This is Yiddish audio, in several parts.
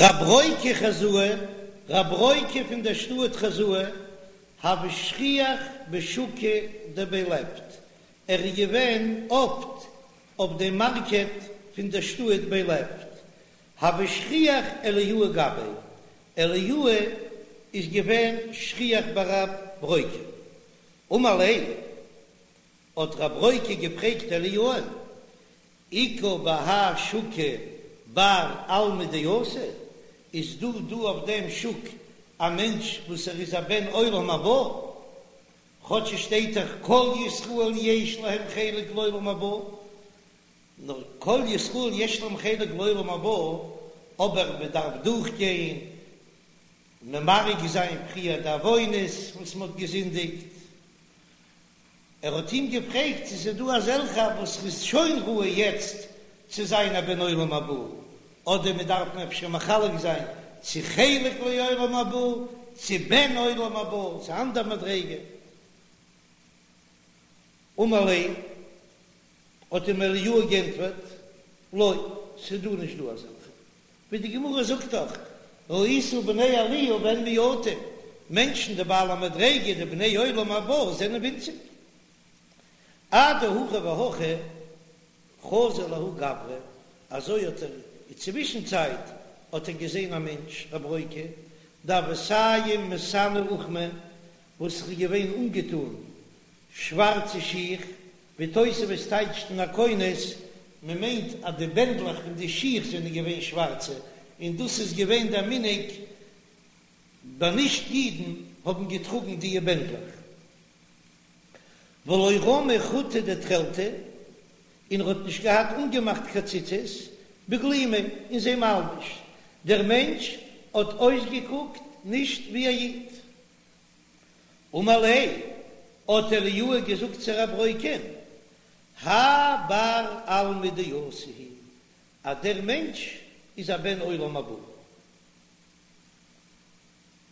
רב ברוקא חוזאה, רב ברוקא פון דער שטאט חוזאה, הוה שכיח בשוקא דבי לפט, ער איז געווען אפט אויף דעם מארקעט פון דער שטאט בי לפט, הוה שכיח אליהו גביה, אליהו איז געווען שכיח ביי רב ברוקא. אמר ליה, האט רב ברוקא געפרעגט אליהו'ן, איכא בהאי שוקא בר עלמא דאתי, איז דא דא אויף דעם שוק א מענטש וואס ער איז א בן עולם הבא? כאטש עס שטייט דאך כל ישראל יש להם חלק לעולם הבא, נאר כל ישראל יש להם חלק לעולם הבא, אבער מען דארף דורכגיין ממרק זיין פריער די עוונות וואס מען האט געזינדיגט. ער האט אים געפרעגט צו ס'איז דא אזעלכע וואס איז שוין ראוי יעצט צו זיין א בן עולם הבא, אדער מען דארף אפשר מחלק זיין צו חלק לעולם הבא צו בן עולם הבא, ס'איז א אנדער מדריגה. אמר ליה, האט אים אליהו גענטפערט, לא, ס'איז דא נישט דא אזעלכע, ווי די גמרא זאגט דאך, ראית בני עליה והן מועטים, מענטשן די בעלי מדריגה די בני עולם הבא זענען ווינציג. אדהכי והכי חזא לההוא גברא, אזוי האט ער אין צווישן צייט האט ער געזען א מענטש רב ברוקא דהוה סיים מסאני אוכמא וואס איז געווען אנגעטון שווארצע שיך, ווי תוספות טייטשט אין הכונס, מען מיינט אז די בענדלעך פון די שיך זענען געווען שווארצע, און דאס איז געווען דער מנהג ביי נישט אידן האבן געטראגן דיע בענדלעך. ולא רמי חוטא דתכלתא, און ער האט נישט געהאט אנגעמאכט קיין ציצית בגלימיה אין זיין מלבוש, דער מענטש האט אויסגעקוקט נישט ווי א איד. אמר ליה, האט אליהו געזאגט צו רב ברוקא'ן, האי בר עלמא דאתי הוא, אז דער מענטש איז א בן עולם הבא.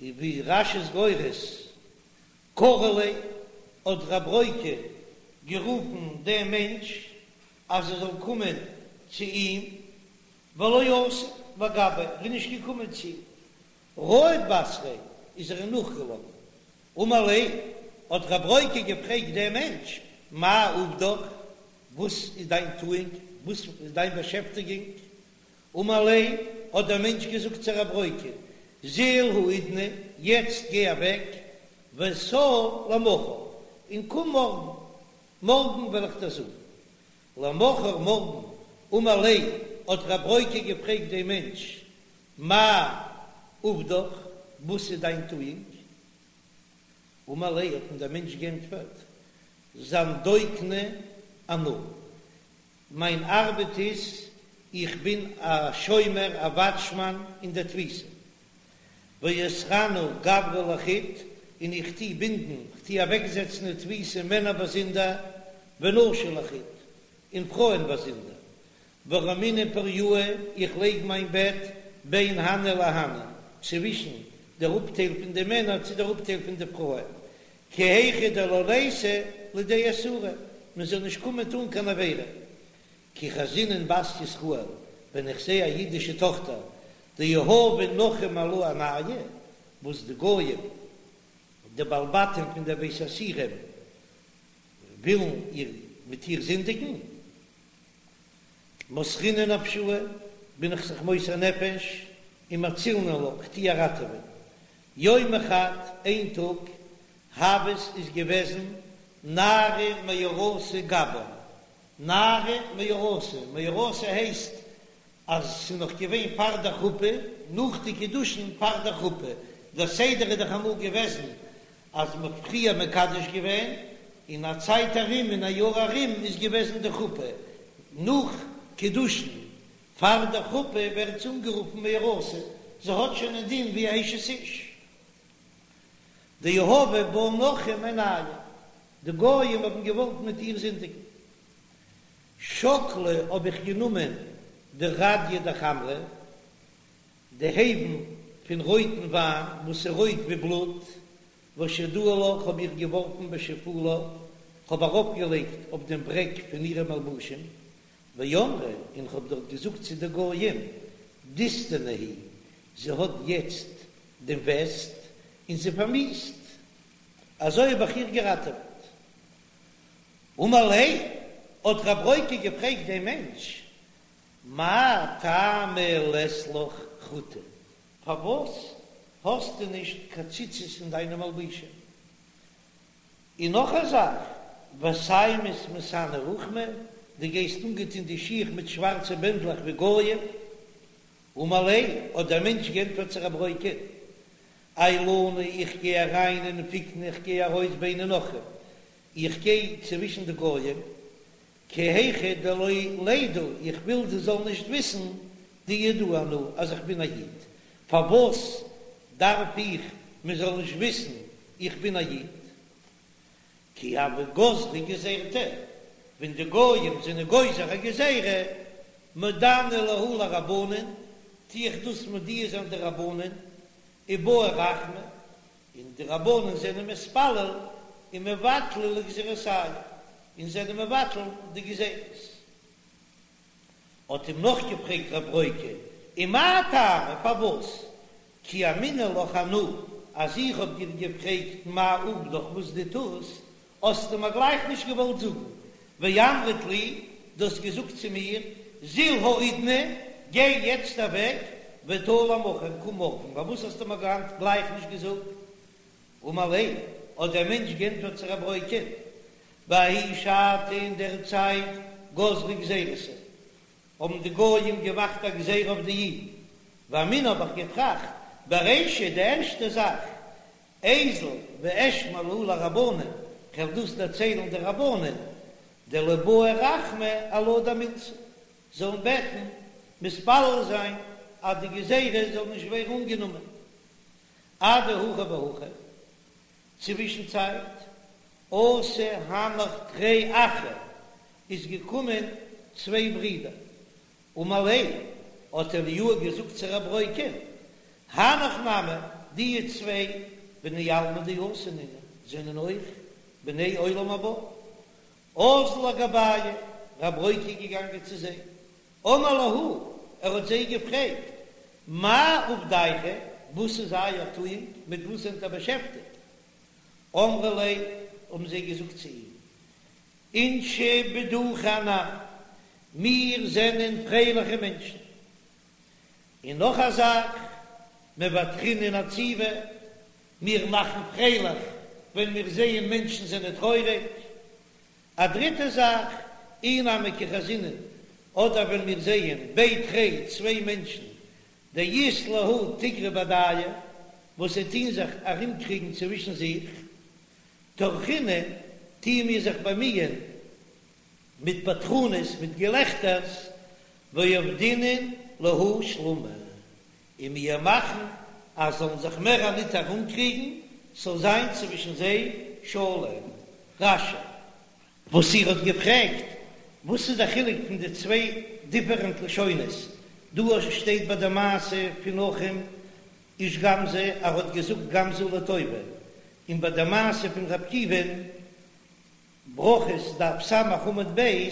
און ווי רש"י איז גורס, קרי ליה, האט רב ברוקא גערופן דעם מענטש אז ער זאל קומען צו אים, ולא אתא לגביה, ער איז נישט געקומען צו אים. רהט בתריה איז ער אים נאכגעלאפן. אמר ליה, האט רב ברוקא געפרעגט דעם מענטש, מאי עובדך, וואס איז דיין טואונג, וואס איז דיין באשעפטיגונג? אמר ליה, האט דער מענטש געזאגט צו רב ברוקא, זיל האידנא, יעצט גיי אוועק, ותא למחר, און קום מארגן, מארגן וועל איך דיר זאגן. למחר מארגן, אמר ליה, האט רב ברוקא געפרעגט דעם מענטש, מאי עובדך, וואס איז דיין טואונג? אמר ליה, האט אים דער מענטש גענטפערט, זנדוקנא אנא, מיין ארבעט איז, איך בין א שומר, א וואטשמאן אין דער תפיסה, ואוסרנא גברי לחוד, און איך טו בינדן, כ'טו אוועקזעצן אין תפיסה מענער באזונדער, ונשי לחוד, און פרויען באזונדער. ורמינא פורייאי, איך לייג מיין בעט בין הני להני, צווישן דער אפטייל פון די מענער צו דער אפטייל פון די פרויען, כי היכי דלא ליתו לידי איסורא, מען זאל נישט קומען טאן קיין עבירה. כי חזינן בת ישראל, ווען איך זע א אידישע טאכטער, דיהבי נכרים עלה עינייהו, וואס די גויים, די בעלי בתים פון דער בית האסירים, ווילן איר מיט איר זינדיגן, מסרינא נפשאי, בין איך זיך מוסר נפש, ומצילנא לה, כ'טו איר ראטעווען. יומא חד, איין טאג, הוות איז געוועזן נערה מאורסה גבן, נערה מאורסה, מאורסה הייסט אז ס'איז נאך געווען פאר דער חופה, נאך די קידושין פאר דער חופה, דער סדר איז דאך אמאל געוועזן אז מ'האט פריער מקדש געווען, און א צייט ארום אין א יאר ארום איז געוועזן די חופה, נאך קידושין פאר דער חופה ווערט זי אנגערופן מאורסה, זי האט שוין א דין ווי א אשת איש. דיהבו בה נכרים עינייהו, די גויים האבן געוואלט מיט איר זינדיגן. שקלי האב איך גענומען די רדיא דחמרא, די הייוון פון רויטן וויין וואס איז רויט ווי בלוט, ושדאי לה האב איך געווארפן בשיפולה, כ'האב ארויפגעלייגט אויף דעם ברעג פון אירע מלבושים, ואמרי, און כ'האב דארט געזאגט צו די גויים, דיסתנא היא. זי האט יעצט דעם וסת און זי פארמיאוסט, אזוי האב איך איר געראטעוועט. אמר ליה, האט רב ברוקא געפרעגט דעם מענטש, מאי טעמא לית לך חוטי, פארוואס האסטו נישט קיין ציצית אין דיינע מלבושים? און נאך א זאך, וסיימת מסאני רוחמי, דו גייסט אנגעטון די שיך מיט שווארצע בענדלעך ווי גויים. אמר ליה, האט דער מענטש גענטפערט צו רב ברוקא, עיילנא איך גיי אריין ונפיקנא איך גיי ארויס ביני נוכרים, איך גיי צווישן די גויים, כי היכי דלא לידעו, איך וויל זיי זאלן נישט וויסן דיהודאה אנא אז איך בין א איד, פארוואס דארף איך מען זאל נישט וויסן איך בין א איד? כי הוו גזרי גזירתא, ווען די גויים זענען גוזר א גזירה, מודענא להו לרבנן, טו איך דאס מודיע זיין די רבנן, ובעו רחמי, און די רבנן זענען מתפלל ומבטלי לגזירתייהו, און זענען מבטל די גזירות. האט אים נאכגעפרעגט רב ברוקא, ומאי טעמא, פארוואס? כי אמינא לך אנא, אז איך האב דיר געפרעגט מאי עובדך וואס דו טוסט, האסטו מיר גלייך נישט געוואלט זאגן, ואמרת לי, דו האסט געזאגט צו מיר, זיל האידנא, גיי יעצט אוועק, ותא למחר, קום מארגן, פארוואס האסטו מיר גלייך נישט געזאגט? אמר ליה, האט דער מענטש גענטפערט צו רב ברוקא, בההיא שעתא אין דער צייט גזרו גזירתא, האבן די גויים געמאכט א גזירה אויף די אידן, ואמינא האב איך געטראכט, ברישא די ערשטע זאך, איזיל ואשמע להו לרבנן, כ'וועל דאס דערציילן די רבנן, דליבעו רחמי עלה דמילתא, זאלן בעטן, מתפלל זיין אז די גזירה זאל נישט ווערן אנגענומען. אדהכי והכי, צווישן צייט, אתו הנך תרי אחי, איז געקומען צוויי ברידער, אמר ליה, האט אליהו געזאגט צו רב ברוקא'ן, הנך נמי, די צוויי בני עלמא דאתי נינהו, זענען אויך בני עולם הבא. אזל לגבייהו, רב ברוקא איז געגאנגען צו זיי, אמר להו, ער האט זיי געפרעגט, מאי עובדייכו, וואס איז אייער טואונג, מיט וואס זענט איר באשעפטיגט? אמרו ליה, האבן זיי געזאגט צו אים, אינשי בדוחי אנן, מיר זענען פרייליכע מענטשן. און נאך א זאך, מבדחינן עציבי, מיר מאכן פרייליך ווען מיר זעען מענטשן זענען טרויעריג. א דריטע זאך, אי נמי כי חזינן, אדער ווען מיר זעען בי תרי צוויי מענטשן, דאית להו תיגרא בהדייהו, וואס זיי טוהן זיך ארומקריגן צווישן זיך, טרחינן, טוען מיר זיך באמיען מיט בדחנות, מיט געלעכטערס, ועבדינן להו שלמא, און מיר מאכן אז זאלן זיך מער ניט ארומקריגן, ס'זאל זיין צווישן זיי שלום. רש"י. וואס איר האט געפרעגט, וואס איז דער חילוק פון די צוויי דיפערענט לשונות, דא שטייט ביי די מעשה פון נחום איש גם זו, ער האט געזאגט גם זו לטובה, און ביי די מעשה פון ר' עקיבא'ן, ברכות דף ס' עמוד ב',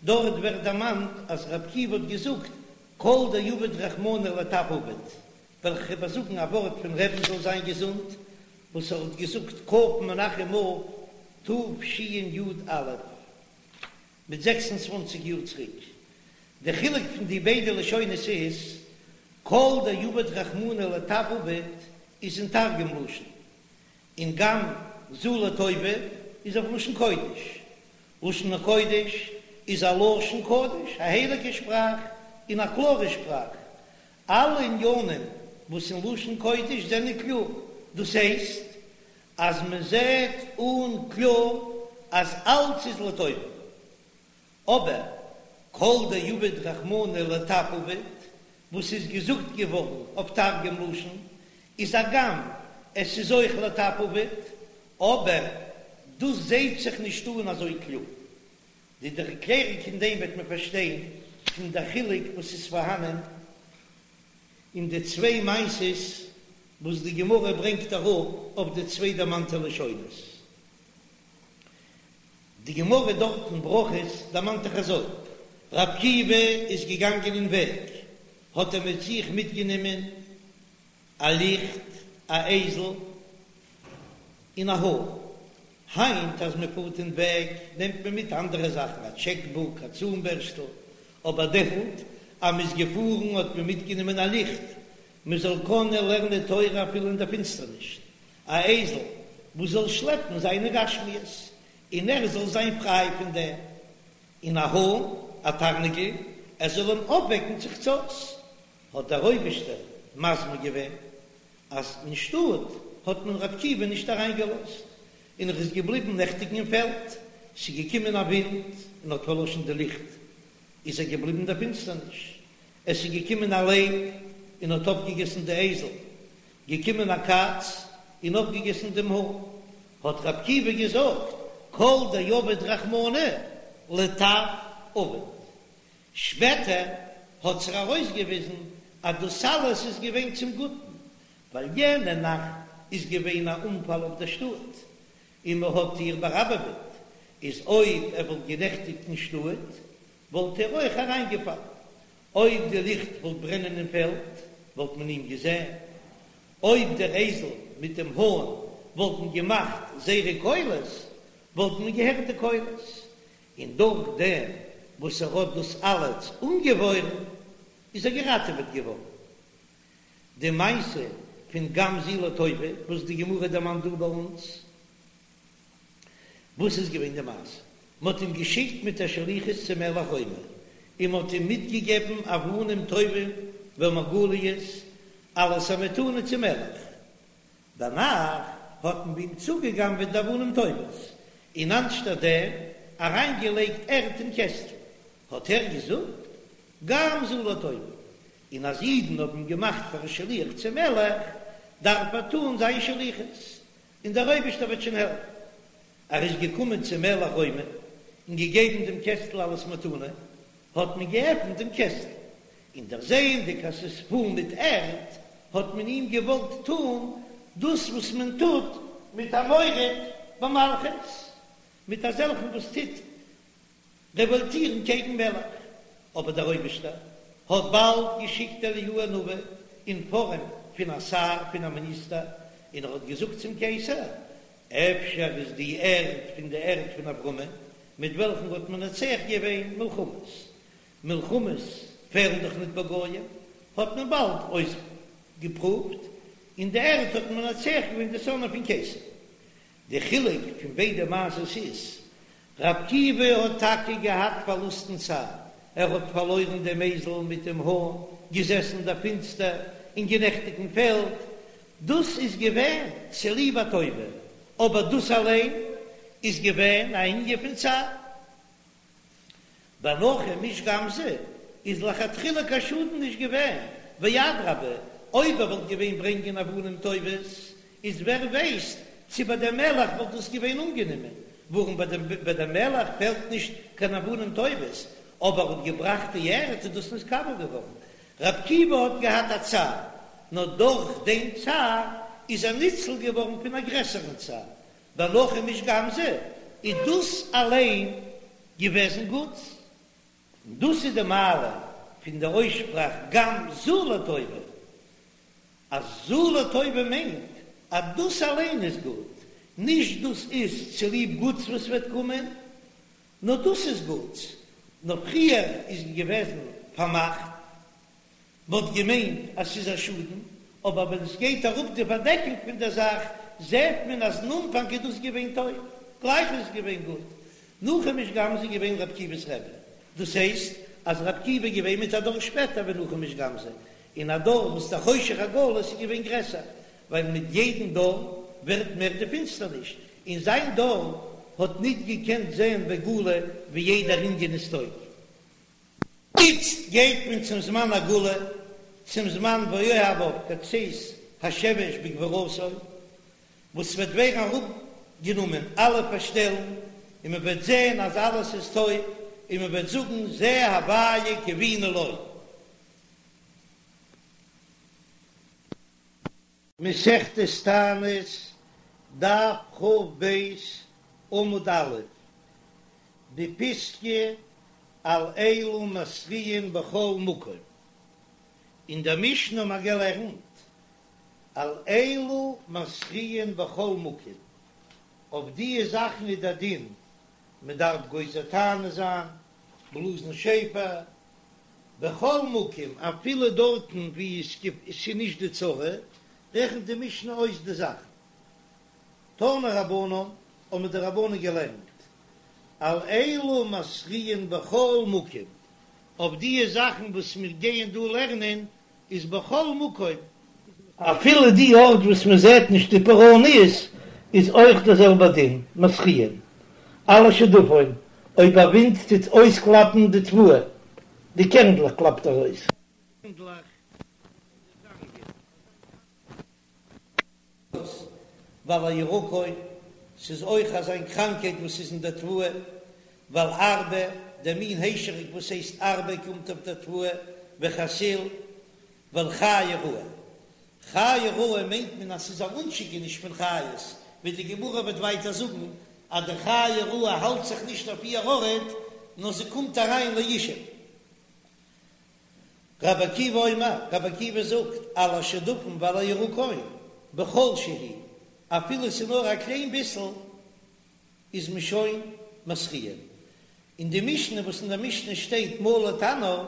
דארט ווערט דערמאנט אז ר' עקיבא האט געזאגט כל דעביד רחמנא לטב עביד, וועל איך איבערזאגן א ווארט פון רבי'ן זאל זיין געזונט וואס ער האט געזאגט כ' מנחם אב תשי"א מיט 26 יאר צוריק. די חילוק פון די ביידע לשונות איז, כל דעביד רחמנא לטב עביד איז אין תרגום לשון, און גם זו לטובה איז אויף לשון קודש. לשון הקודש איז א לשון קודש, א הייליגע שפראך און א קלארע שפראך. אלע עניינים וואס אין לשון קודש זענען קלאר, דאס הייסט אז מען זעט אן קלאר אז אלץ איז לטובה. אבער כל דעביד רחמנא לטב עביד, וואס איז געזאגט געווארן אויף תרגום לשון, איז הגם עס איז אויך לטב עביד, אבער דאס זעהט זיך נישט אן אזוי קלאר. די ערקלערונג פון דעם וועט מען פארשטיין פון די חילוק וואס איז פארהאנען אין די צוויי מעשות וואס די גמרא ברענגט אראפ אויף די צוויי דערמאנטע לשונות. די גמרא דארט אין ברכות דערמאנט דאך אזוי, ר' עקיבא איז געגאנגען אין וועג, האט ער מיט זיך מיטגענומען. א ליכט, א אייזל, און א האן. היינט אז מען פארט אין וועג נעמט מען מיט אנדערע זאכן, א טשעק בוק, א צאן בערשטל, אבער דעמאלט אז מען איז געפארן האט מען מיטגענומען א ליכט מען זאל קענען לערנען תורה אפילו אין דער פינסטערניש, א אייזל וואס זאל שלעפן זיינע גשמיות און ער זאל זיין פריי פון דעם, און א האן, א תרנגול, ער זאל אים אויפוועקן צו חצות, האט דער אויבערשטער מזמין געווען אז אין שטאט האט מען ר' עקיבא נישט אריינגעלאזט, און ער איז געבליבן נעכטיגן אין פעלד, ס'איז געקומען א ווינט און האט פארלאשן די ליכט, איז ער געבליבן אין דער פינסטערניש, עס איז געקומען א לייב און האט אויפגעגעסן די אייזל, געקומען א קאץ און אויפגעגעסן דעם האן, האט ר' עקיבא געזאגט, כל דעביד רחמנא לטב עביד. שפעטער האט זיך ארויסגעוויזן אז דאס אלעס איז געווען צום גוטן, ווייל יענע נאכט איז געווען א אנפאל אויף דער שטאט, און מען האט איר באראבעוועט, איז אויב ער וואלט גענעכטיגט אין שטאט, וואלט ער אויך אריינגעפאלן. אויב די ליכט וואלט ברענען אין פעלד, וואלט מען אים געזען. אויב דער אייזל מיט דעם האן וואלטן געמאכט זייערע קולות, וואלט מען געהערט די קולות. און דורך דעם וואס ער האט דאס אלעס אנגעוואוירן, איז ער געראטעוועט געווארן. די מעשה פון גם זו לטובה וואס די גמרא דערמאנט דא ביי אונז, וואס איז געווען די מעשה? מען האט אים געשיקט מיט א שליחות צום מלך רומי, און מען האט אים מיטגעגעבן אבנים טובים ומרגליות אלס א מתנה צום מלך. דערנאך האט מען ביי אים צוגעגנבעט די אבנים טובות, און אנשטאט דעם אריינגעלייגט ערד אין קעסטל. האט ער געזאגט, גם זו לטובה, און אז אידן האבן אים געמאכט פאר א שליח צום מלך, דארף ער טאן זיין שליחות, און דער אויבערשטער וועט שוין העלפן. ער איז געקומען צום מלך רומי און געגעבן דעם קעסטל אלס מתנה, האט מען געעפנט דעם קעסטל, און דערזעענדיג אז ס'איז פול מיט ערד, האט מען אים געוואלט טאן דאס וואס מען טוט מיט א מורד במלכות, מיט אזעלכן וואס טוט רעוואלטירן קעגן מלך, אבער דער אויבערשטער האט באלד געשיקט אליהו הנביא אין פארעם פון א שר, פון א מיניסטער, און ער האט געזאגט צום קיסר, אפשר איז די ערד פון די ערד פון אברהמען, מיט וועלכן האט מנצח געווען מלחמות, מלחמות פעלן דאך ניט ביי גויים, האט מען באלד אויסגעפרואווט, און די ערד האט מנצח געווען די שונאים פון קיסר. די חילוק פון ביידע מעשות איז, ר' עקיבא האט טאקע געהאט פארלוסטן צער, ער האט פארלוירן דעם אייזל מיט דעם האן, געזעסן אין דער פינסטער און גענעכטיגט אין פעלד, דאס איז געווען צוליב א טובה, אבער דאס אליין איז געווען א ענין פון צער. ביי נחום איש גם זו איז לכתחילה קיין שאדן נישט געווען, ואדרבה אויב ער וואלט געווען ברענגען אבנים טובות איז ווער ווייסט צו ביי דעם מלך וואלט דאס געווען אנגענומען, ווארום ביי דעם ביי דעם מלך פעלט נישט קיין אבנים טובות, אבער ער האט געבראכט די ערד איז דאס נתקבל געווארן. ר' עקיבא האט געהאט א צער, נאר דורך דעם צער איז ער ניצל געווארן פון א גרעסערן צער, ביי נחום איש גם זו איז דאס אליין געוועזן גוט, און דאס איז די מעלה פון די אויסשפראך גם זו לטובה, אז זו לטובה מיינט אז דאס אליין איז גוט, נישט דאס איז צוליב גוטס וואס וועט קומען, נאר דאס איז גוטס, נאר פריער איז געוועזן פארמאכט מ'האט געמיינט אז ס'איז א שאדן, אבער ווען עס גייט אראפ די פארדעקונג פון דער זאך, זעט מען אז אין אנפאנג איז דאס געווען טוב, גלייך איז עס געווען גוט. נחום איש גם זו איז געווען ר' עקיבא'ס רבי, דאס הייסט אז ר' עקיבא איז געווען מיט א דור שפעטער ווי נחום איש גם זו, אין א דור וואס דער חושך הגלות איז געווען גרעסער, ווייל מיט יעדן דור ווערט מער די פינסטערניש, אין זיין דור האט ניט געקענט זען בגלוי ווי יעדער ענין איז טוב. איצט גייט מען צום זמן הגאולה, צום זמן ואוהביו כצאת השמש בגבורתו, וואס ס'וועט ווערן אראפגענומען אלע פארשטעלן, און מען וועט זען אז אלעס איז טוב, און מען וועט זאגן זה הוויה קוינו לו. מסכת תענית, דף כ"ב, עמוד א', די פיסקא על אלו מתריעין בכל מקום. אין דער משנה האבן מיר געלערנט. על אלו מתריעין בכל מקום, אויף דיע זאכן איז דער דין, מען דארף גוזר תענית זיין, בלאזן שופר, בכל מקום, אפילו דארטן וואו עס איז נישט די צרה, רעכנט די משנה אויס די זאכן. תנו רבנן, האבן די רבנן געלערנט, על אלו מתריעין בכל מקום, אויף דיע זאכן וואס מיר גייען דא לערנען איז בכל מקום, אפילו די ארט וואס מען זעט נישט די פורעניות איז אויך דער זעלבער דין, מתריעין על השדפון, אויב א ווינט טוט אויסקלאפן די תבואה, די קערנדלעך קלאפט ער אויס. קערנדלעך פון די זאנגען. ועל הירקון, ס'איז אויך אזא מין קראנקייט וואס איז אין דער תבואה, ועל ארבה, דער מין היישעריק וואס הייסט ארבה קומט אויף דער תבואה, וחסיל, ועל חיה רעה. חיה רעה מיינט מען אז ס'איז א אנשיקעניש פון חיות, ווי די גמרא וועט ווייטער זאגן אז די חיה רעה האלט זיך נישט אויף איר ארט, נאר זי קומט אריין לישוב. רבי עקיבא אומר, רבי עקיבא זאגט, על השדפון ועל הירקון, בכל שהוא, אפילו ס'איז נאר א קליין ביסל, איז מען שוין מתריע. אין די משנה וואס אין די משנה שטייט מלא תנור,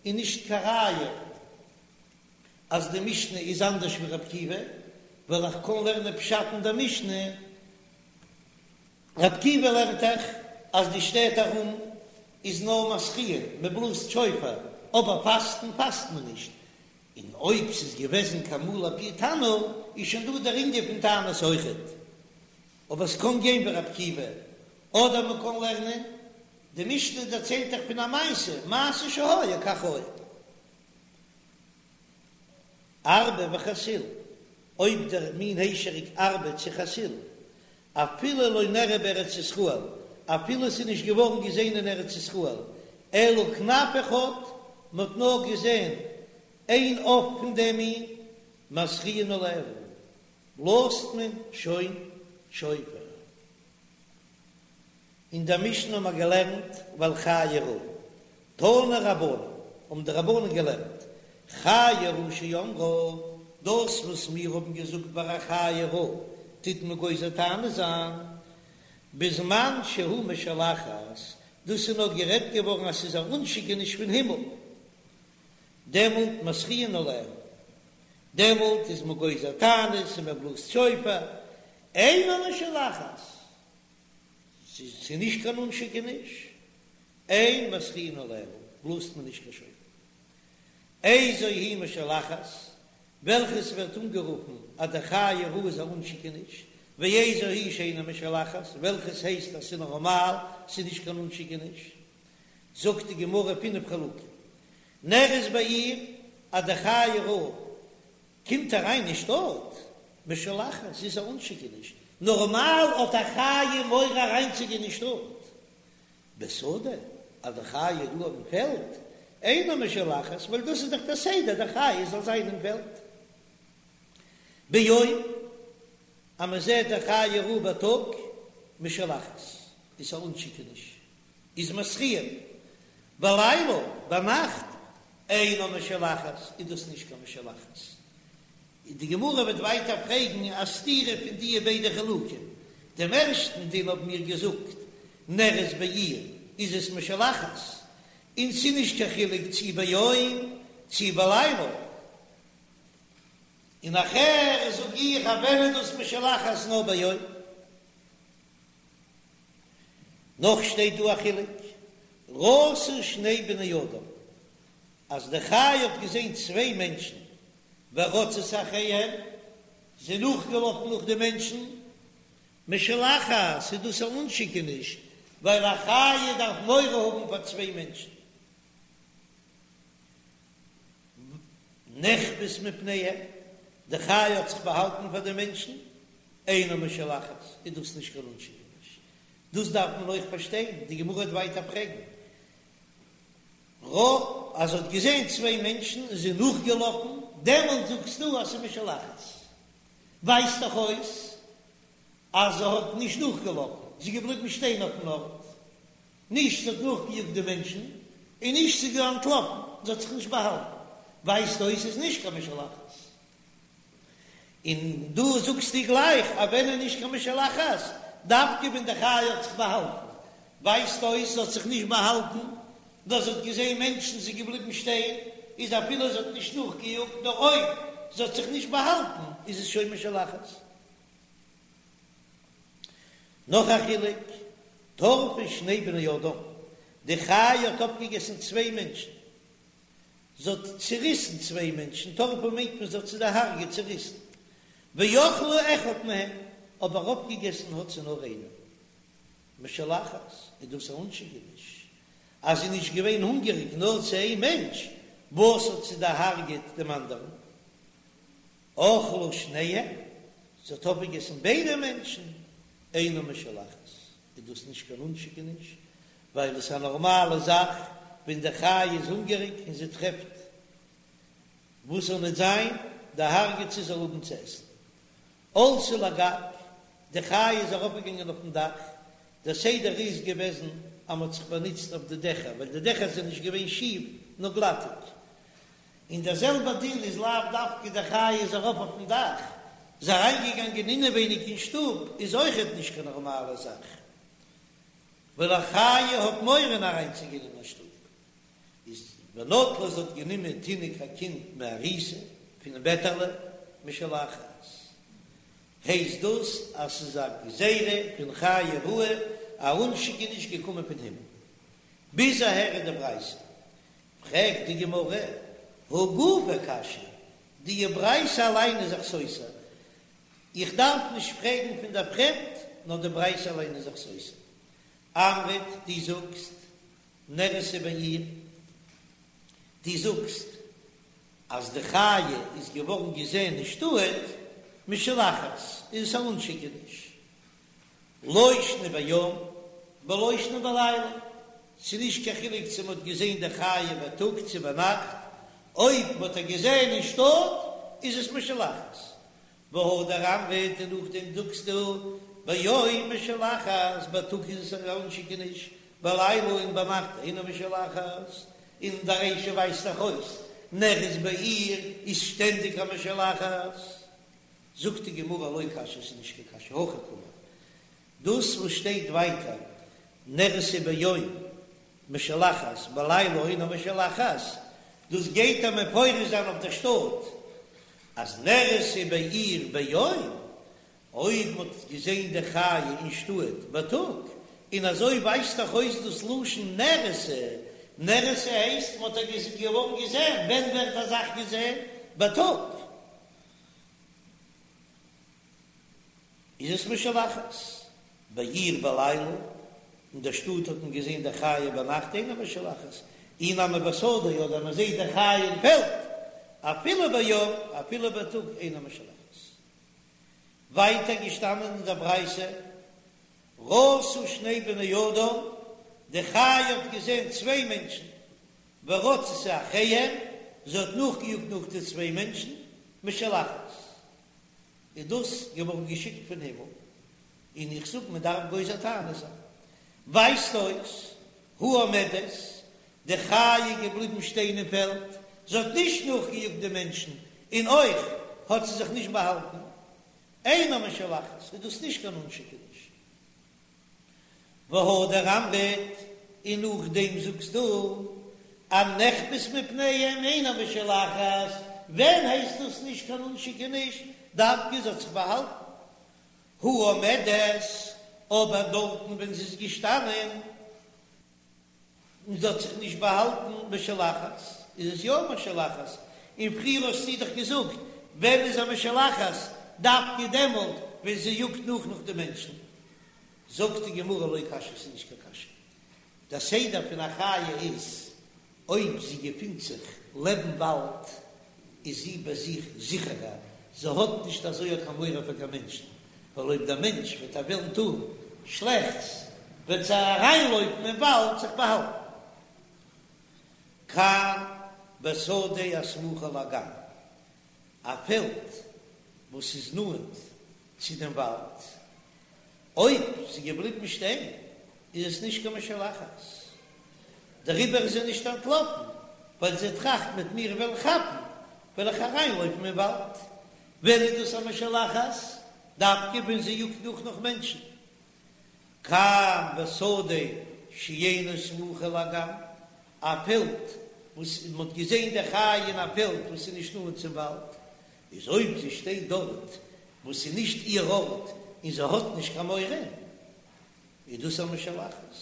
איז נישט קיין ראיה אז די משנה איז אנדערש ווי רבי עקיבא, ווייל איך קען לערנען פשט אין די משנה, רבי עקיבא לערנט דאך אז די שטעט ארום איז נאר מתריעין, מען בלאזט שופר, אבער פאסטן פאסט מען נישט, און אויב ס'איז געוועזן כמלא פי תנור איז שוין דא דער ענין פון תענית אויכעט, אבער ס'קען גיין ווי רבי עקיבא, אדער מען קען לערנען, די משנה דערציילט דאך פון א מעשה, מעשה שהיה כך היה. ארבה וחסיל, אויב דער מין היישעריק ארבה צו חסיל, אפילו לא נראה בארץ ישראל, אפילו ס'איז נישט געווארן געזען אין ארץ ישראל, אלא כנף אחד, מ'האט נאר געזען איין עוף פון דעם מין, מתריעין עליה, בלאזט מען שוין שופר. אין דער משנה האבן מיר געלערנט ועל חיה רעה, תנו רבנן, האבן די רבנן געלערנט, חיה רעה שאמרה, דאס וואס מיר האבן געזאגט ביי א חיה רעה טוט מען גוזר תענית זיין, בזמן שהוא משולחת, דאס איז נאר גערעדט געווארן אז ס'איז א אנשיקעניש פון הימל, דעמאלט מתריעין עליה, דעמאלט איז מען גוזר תענית און מען בלאזט שופר, אינה משולחת. ס'איז נישט קיין אנשיקעניש, אין מתריעין עליה, בלאזט מען נישט קיין שופר. איזו היא משולחת, וועלכעס ווערט אנגערופן אז די חיה רעה איז א אנשיקעניש, ואיזו היא שאינה משולחת, וועלכעס הייסט אז ס'איז נארמאל, ס'איז נישט קיין אנשיקעניש. זאגט די גמרא פינף חילוקים. נראית בעיר אז די חיה רעה קומט אריין אין שטאט, משולחת, ס'איז א אנשיקעניש, נארמאל האט א חיה מורא אריינצוגיין אין שטאט, בשדה, אז די חיה איז דא אויפן פעלד, אינה משולחת, ווייל דאס איז דאך דער סדר, די חיה זאל זיין אין פעלד. ביום, אז מען זעט די חיה רעה בייטאג, משולחת, איז א אנשיקעניש, איז מתריעין, בלילה, ביינאכט, אינה משולחת, איז דאס נישט קיין משולחת. און די גמרא וועט ווייטער פרעגן א סתירה פון דיע ביידע חילוקים. דעם ערשטן דין האבן מיר געזאגט, נראית בעיר איז עס משולחת, און ס'איז נישט קיין חילוק צי ביום צי בלילה. און נאכער זאג איך אז ווען איז דאס משולחת נאר ביום. נאך שטייט דא א חילוק, ראתה שני בני אדם, אז די חיה האט געזען צוויי מענטשן, ורצתה אחריהם, זי איז נאכגעלאפן נאך די מענטשן, משולחת, איז דאס א אנשיקעניש, ווייל א חיה דארף מורא האבן פאר צוויי מענטשן. נחבאת מפניהם, די חיה האט זיך באהאלטן פאר די מענטשן, אינה משולחת, איז דאס נישט קיין אנשיקעניש. דאס דארף מען אויך פארשטיין, די גמרא וועט ווייטער פרעגן, רא, אז זי האט געזען צוויי מענטשן און זי איז נאכגעלאפן, דעמאלט זאגסטו אז ס'איז משולחת. ווייזט דאך אויס אז זי האט נישט נאכגעלאפן, זי איז געבליבן שטיין אויפן ארט. נישט זי האט נאכגעיאגט די מענטשן, און נישט זי איז אנטלאפן, זי האט זיך נישט באהאלטן. ווייזט אויס ס'איז נישט קיין משולחת. און דא זאגסטו גלייך אז ווען איז נישט קיין משולחת, דווקא ווען די חיה האט זיך באהאלטן, ווייזט אויס זי האט זיך נישט באהאלטן, נאר זי האט געזען מענטשן זי איז געבליבן שטיין, איז אפילו זי האט נישט נאכגעיאגט, נאר אויב זי האט זיך נישט באהאלטן איז עס שוין משולחת. נאך א חילוק, טרפה שני בני אדם, די חיה האט אפגעגעסן צוויי מענטשן, זי האט צעריסן צוויי מענטשן, טרפה מיינט מען זי האט זיי דערהרגעט, צעריסן, ואכלה אחד מהם, אבער אפגעגעסן האט זי נאר איינעם. משולחת, איז דאס א אנשיקעניש אז זי איז נישט געווען הונגעריג נאר צו איין מענטש, וואס האט זי דערהרגעט דעם אנדערן? אכלה שניהם, זי האט אויפגעגעסן ביידע מענטשן, אינה משולחת, איז דאס נישט קיין אנשיקעניש, ווייל עס איז א נארמאלע זאך ווען די חיה איז הונגעריג און זי טרעפט וואס זאל ניט זיין, דערהרגעט זי זאל האבן צו עסן. עלתה לגג, די חיה איז ארויפגעגאנגען אויפן דאך, דער סדר איז געוועזן אז מען האט זיך באנוצט אויף די דעכער, ווייל די דעכער זענען נישט געווען שיף נאר גלאטיג, און דער זעלבער דין איז לאו דווקא די חיה איז ארויף אויפן דאך, זי אריינגעגאנגען אינעווייניג אין שטוב איז אויכעט נישט קיין נארמאלע זאך, ווייל א חיה האט מורא אריינצוגיין אין א שטוב. איז ונטלה זי האט גענומען תינוק א קינד מעריסה פונעם בעטעלע משולחת הייסט דאס אז ס'איז א גזירה פון חיה רעה א אנשיקעניש געקומען פון הימל ביז אהער איז די ברייתא פרעגט די גמרא הא גופא קשיא די ברייתא אליין איז זיך סותר איך דארף נישט פרעגן פון דער פרעמד נאר די ברייתא אליין איז זיך סותר אמרת דו זאגסט נראתה בעיר, דו זאגסט אז די חיה איז געווארן געזען אין שטאט, משולחת איז עס א אנשיקעניש, לא שנא ביום ולא שנא בלילה, ס'איז נישט קיין חילוק צו מ'האט געזען די חיה בייטאג צו ביינאכט, אויב מ'האט איר געזען אין שטאט איז עס משולחת, והדר אמרת און נאכדעם זאגסטו ביום משולחת, בייטאג איז עס א אנשיקעניש, בלילה און ביינאכט אינה משולחת, און די רישא ווייזט דאך אויס נראית בעיר איז שטענדיג א משולחת. זאגט די גמרא לא קשיא ס'איז נישט קיין קשיא הכי קאמר דאס וואס שטייט ווייטער נראתה ביום משולחת בלילה אינה משולחת, דאס גייט ער מפרש זיין אויף דער שטאט אז נראתה בעיר ביום, אויב מען האט געזען די חיה אין שטאט בייטאג, און אזוי ווייזט דאך אויס דאס לשון נראתה, נראתה הייסט מען האט איר געווארן געזען, ווען ווערט א זאך געזען? בייטאג. איז עס משולחת בעיר בלילה, אין דער שטאט האט מען געזען די חיה ביינאכט אינה משולחת, אי נמי בשדה אדער מען זעט די חיה אין פעלד אפילו ביום אפילו בייטאג אינה משולחת. ווייטער געשטאנען אין דער ברייתא ראתה שני בני אדם, די חיה האט געזען צוויי מענטשן, ורצתה אחריהם, זי האט נאכגעיאגט נאך די צוויי מענטשן, משולחת. איז דאס געווארן געשיקט פון הימל, און איך זאג מען דארף גוזר תענית זיין. ווייזט אויס, הא עומדת, די חיה איז געבליבן שטיין אין פעלד, זי האט נישט נאכגעיאגט די מענטשן, און אויך האט זי זיך נישט באהאלטן. אינה משולחת, איז דאס נישט קיין אנשיקעניש. והדר אמרת, און נאכדעם זאגסטו הנחבאת מפניהם אינה משולחת, ווען הייסט דאס נישט קיין אנשיקעניש, דווקא זי האט זיך באהאלטן, הא עומדת, אבער דארטן ווען זי איז געשטאנען און זי האט זיך נישט באהאלטן משולחת, איז עס יא משולחת, און פריער האסטו דאך געזאגט ווען איז א משולחת, דווקא דעמאלט ווען זי יאגט נאך נאך די מענטשן, זאגט די גמרא לא קשיא ס'איז נישט קיין קשיא, דער סדר פון א חיה איז אויב זי געפינט זיך לעבן וואלד איז זי ביי זיך זיכערער, זי האט נישט אזוי קיין מורא פאר קיין מענטשן, ווייל אויב דער מענטש וועט איר וועלן טון שלעכטס וועט זי אריינלויפן אין וואלד זיך באהאלטן. כאן בשדה הסמוכה לאגם, א פעלד וואס איז נאנט צו דעם וואלד, אויב זי געבליבן שטיין איז עס נישט קיין משולחת, דעריבער איז זי נישט אנטלאפן, ווייל זי טראכט מ'עט מיר וועלן כאפן וועל איך אריינלויפן אין וואלד. ווען איז דאס א משולחת? דווקא ווען זי יאגט נאך נאך מענטשן. כאן בשדה שאינה סמוכה לאגם, א פעלד וואס מען האט געזען די חיה אין א פעלד וואס איז נישט נאנט צום וואלד, איז אויב זי שטייט דארט וואס איז נישט איר ארט און זי האט נישט קיין מורא, איז דאס א משולחת.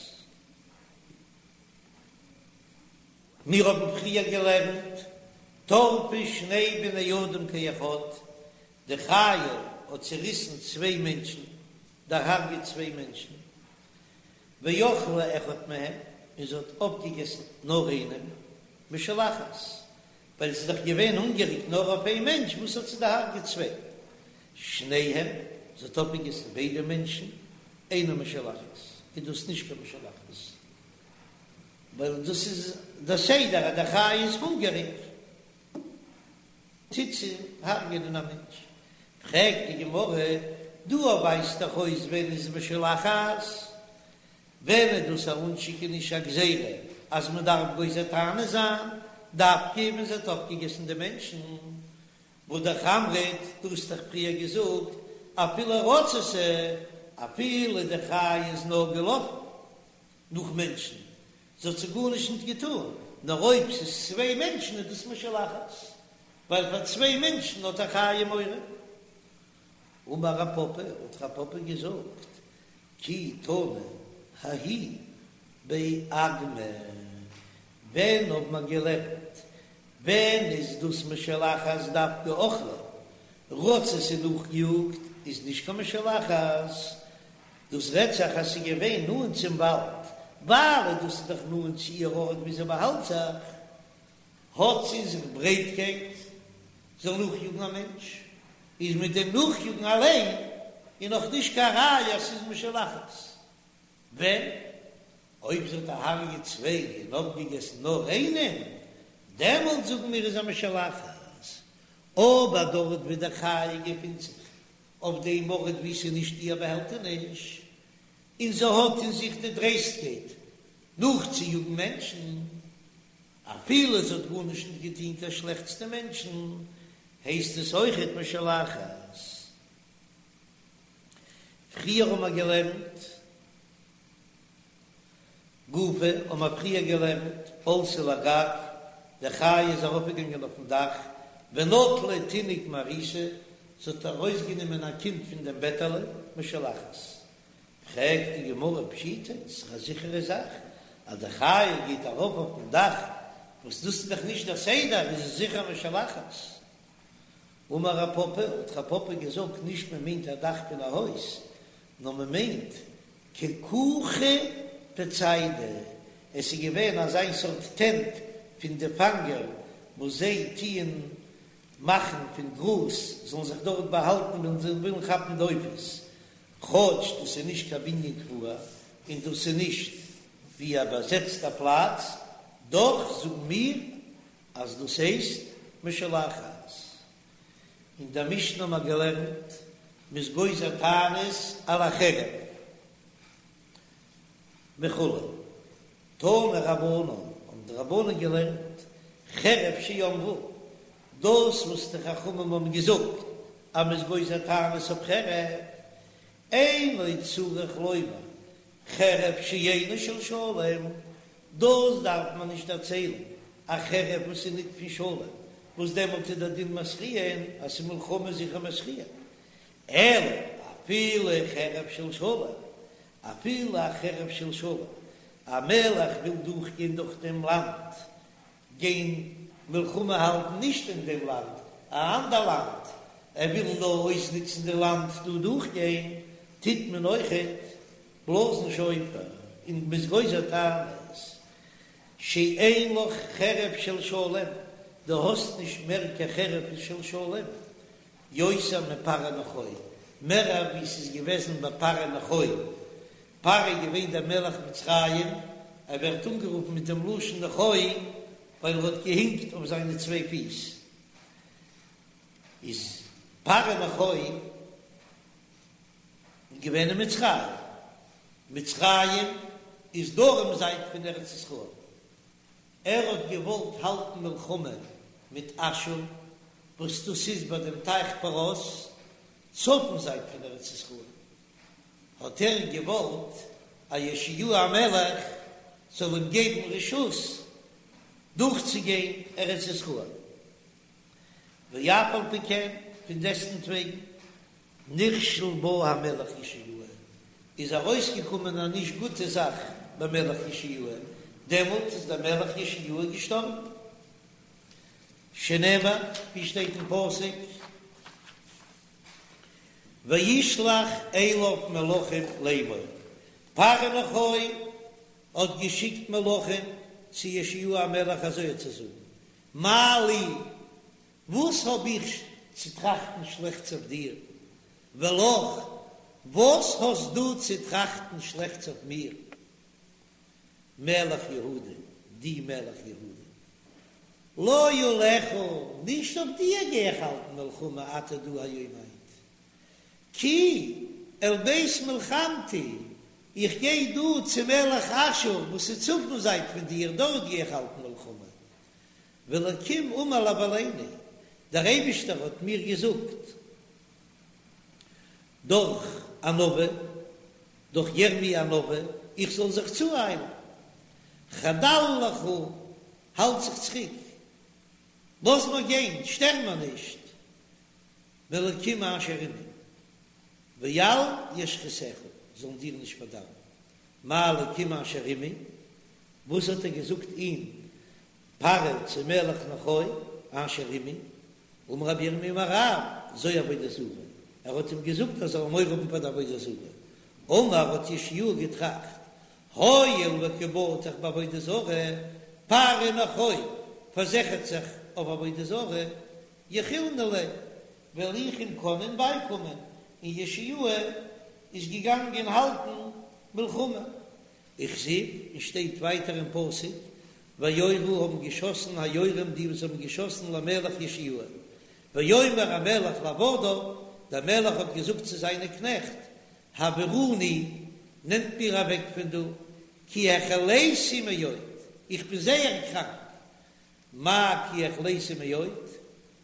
מיר האבן פריער געלערנט, טרפה שני בני אדם כאחד, די חיה האט צעריסן צוויי מענטשן, דערהרגעט צוויי מענטשן, ואכלה אחד מהם, און זי האט אויפגעגעסן נאר איינעם, משולחת, ווייל זי איז דאך געווען הונגעריג נאר אויף איין מענטש, וואס האט זי דערהרגעט צוויי? שניהם, זי האט אויפגעגעסן ביידע מענטשן, אינה משולחת, איז דאס נישט קיין משולחת, ווייל דאס איז דער סדר אז די חיה איז הונגעריג. טוט זי הרג'ענען א מענטש. פרעגט די גמרא, דא ווייזט דאך אויס ווען איז משולחת, ווען איז דאס א אנשיקעניש א גזירה אז מען דארף גוזר תענית זיין, דווקא ווען זי האט אויפגעגעסן די מענטשן, והא אמרת, דו האסט דאך פריער געזאגט אפילו רצתה, אפילו די חיה איז נאר געלאפן נאך מענטשן, זי האט זיי גארנישט ניט געטאן, נאר אויב ס'איז צוויי מענטשן איז דאס משולחת, ווייל פאר צוויי מענטשן האט א חיה מורא. אמר רב פפא, האט רב פפא געזאגט, כי תנא ההיא באגמא, ווען האט מען געלערנט, ווען איז דאס משולחת דווקא אכלה, רצתה און נאכגעיאגט איז נישט קיין משולחת, דאס רעדט זיך אז ס'איז געווען נאנט צום וואלד, ווייל דאס איז דאך נאנט צו איר ארט ווי זי באהאלט זיך, האט זי אין זיך ברייטקייט זאל נאכיאגן א מענטש, איז מיט דעם נאכיאגן אליין איז נאך נישט קיין ראיה אז ס'איז משולחת. ווען? אויב זי האט דערהרגעט צוויי און אויפגעגעסן נאר איינעם, דעמאלט זאגן מיר איז א משולחת, אבער דארט ווי די חיה געפינט זיך אויף דעם ארט וואו ס'איז נישט איר באהעלטעניש, און זי האט אין זיך די דרייסטקייט נאכצויאגן מענטשן, אפילו זי האט גארנישט נישט געטון קיין שלעכטס די מענטשן, הייסט עס אויכעט משולחת. פריער האבן מיר געלערנט. גופא האבן מיר פריער געלערנט, עלתה לגג, די חיה איז ארויפגעגאנגען אויפן דאך, ונטלה תינוק מעריסה, זי האט ארויסגענומען א קינד פון דעם בעטעלע, משולחת. פרעגט די גמרא פשיטא, ס'איז א זיכערע זאך אז די חיה גייט ארויף אויפן דאך, וואס דאס איז דאך נישט דער סדר, איז עס זיכער משולחת. אמר רב פפא, האט רב פפא געזאגט, נישט מען מיינט א דאך פון א הויז, נאר מען מיינט ככוכי דציידי, עס איז געווען אזיין סארט טענט פון די פאנגער וואס זיי טוען מאכן פון גראז זאלן זיך דארט באהאלטן ווען זיי ווילן כאפן די עופות, כאטש דאס איז נישט קיין בנין קבוע און דאס איז נישט ווי א באזעצטע פלאץ, דאך זאגן מיר אז דאס הייסט משולחת. אין דער משנה האבן מיר געלערנט, מ'איז גוזר תענית על החרב וכו'. תנו רבנן, האבן די רבנן געלערנט, חרב שאמרו, דאס וואס די חכמים האבן געזאגט אז מ'איז גוזר תענית אויף חרב, אינו צריך לומר חרב שאינה של שלום, דאס דארף מען נישט דערציילן, א חרב וואס איז ניט פון שלום, וואס דעמאלט איז דער דין מתריעין, אז ס'איז מלחמה זיכער מתריעין, אלא אפילו חרב של שלום, אפילו א חרב של שלום, א מלך וויל דורכגיין דורך דעם לאנד, גיין מלחמה האלטן נישט אין דעם לאנד, א אנדער לאנד, ער וויל נאר אויסנוצן די לאנד דא דורכגיין, טוט מען אויכעט בלאזן שופר און מ'איז גוזר תענית, שאין לך חרב של שלום, דו האסט נישט מער קיין חרב של שלום, יותר מפרעה נכו, מער ווי ס'איז געוועזן ביי פרעה נכו, פרעה איז געווען דער מלך מצרים, ער ווערט אנגערופן מיט דעם לשון נכו ווייל ער האט געהינקט אויף זיינע צוויי פיס, איז פרעה נכו געווען אין מצרים, מצרים איז דרום זייט פון ארץ ישראל, ער האט געוואלט האלטן מלחמה מיט אשור. וואס דאס איז ביי דעם טייך פרת, צפון זייט פון ארץ ישראל, האט ער געוואלט אז יאשיהו המלך זאל אים געבן רשות דורכצוגיין ארץ ישראל, ואף על פי כן, פון דעסטנטוועגן, נכשל בה המלך יאשיהו, איז ארויסגעקומען א נישט גוטע זאך ביי מלך יאשיהו, דעמאלט איז דער מלך יאשיהו געשטארבן. שנאמר, ווי שטייט אין פסוק, וישלח אליו מלאכים לאמור, פרעה נכה האט געשיקט מלאכים צו יאשיהו המלך אזוי צו זאגן, מה לי, וואס האב איך צו טראכטן שלעכטס אויף דיר, ולך, וואס האסט דו צו טראכטן שלעכטס אויף מיר? מלך יהודה, דו מלך יהודה. לא עליך, נישט אויף דיר גיי איך האלטן מלחמה אתה דו היום היינט. כי אל בית מלחמתי, איך גיי דא צו מלך אשור וואס איז צפון זייט פון דיר, דארט גיי איך האלטן מלחמה. והאלקים אמר להבהילני, דער אייבישטער האט מיר געזאגט דורך א נביא, דורך ירמי' הנביא, איך זאל זיך צואיילן, חדל לך, האלט זיך צוריק, לאז מיר גיין, שטער מיר נישט, מאלקים אשר עמי, ואל ישחיתך, זאלן דיר נישט פארדארבן, מה אלקים אשר עמי, וואס האט ער געזאגט אים פרעה צו מלך נכה אשר עמי, אמר רבי ירמי' אמר רב, זו עבודה זרה, ער האט אים געזאגט ער זאל מורא האבן פאר די עבודה זרה, אמר האט יאשיהו געטראכט, הואיל וקא בטח בעבודה זרה, פרעה נכה פארזיכערט זיך אויף עבודה זרה, יכילנא ליה, וועל איך אים קענען בייקומען, און יאשיהו איז געגאנגען האלטן מלחמה. וכתיב, און שטייט ווייטער אין פסוק, ויורו האבן געשאסן היורים די וואס האבן געשאסן למלך יאשיהו, ויאמר המלך לעבדיו, דער מלך האט געזאגט צו זיינע קנעכט, העבירוני, נעמט מיר אוועק פון דא, כי החליתי מאוד, איך בין זייער קראנק, מאי כי החליתי מאוד,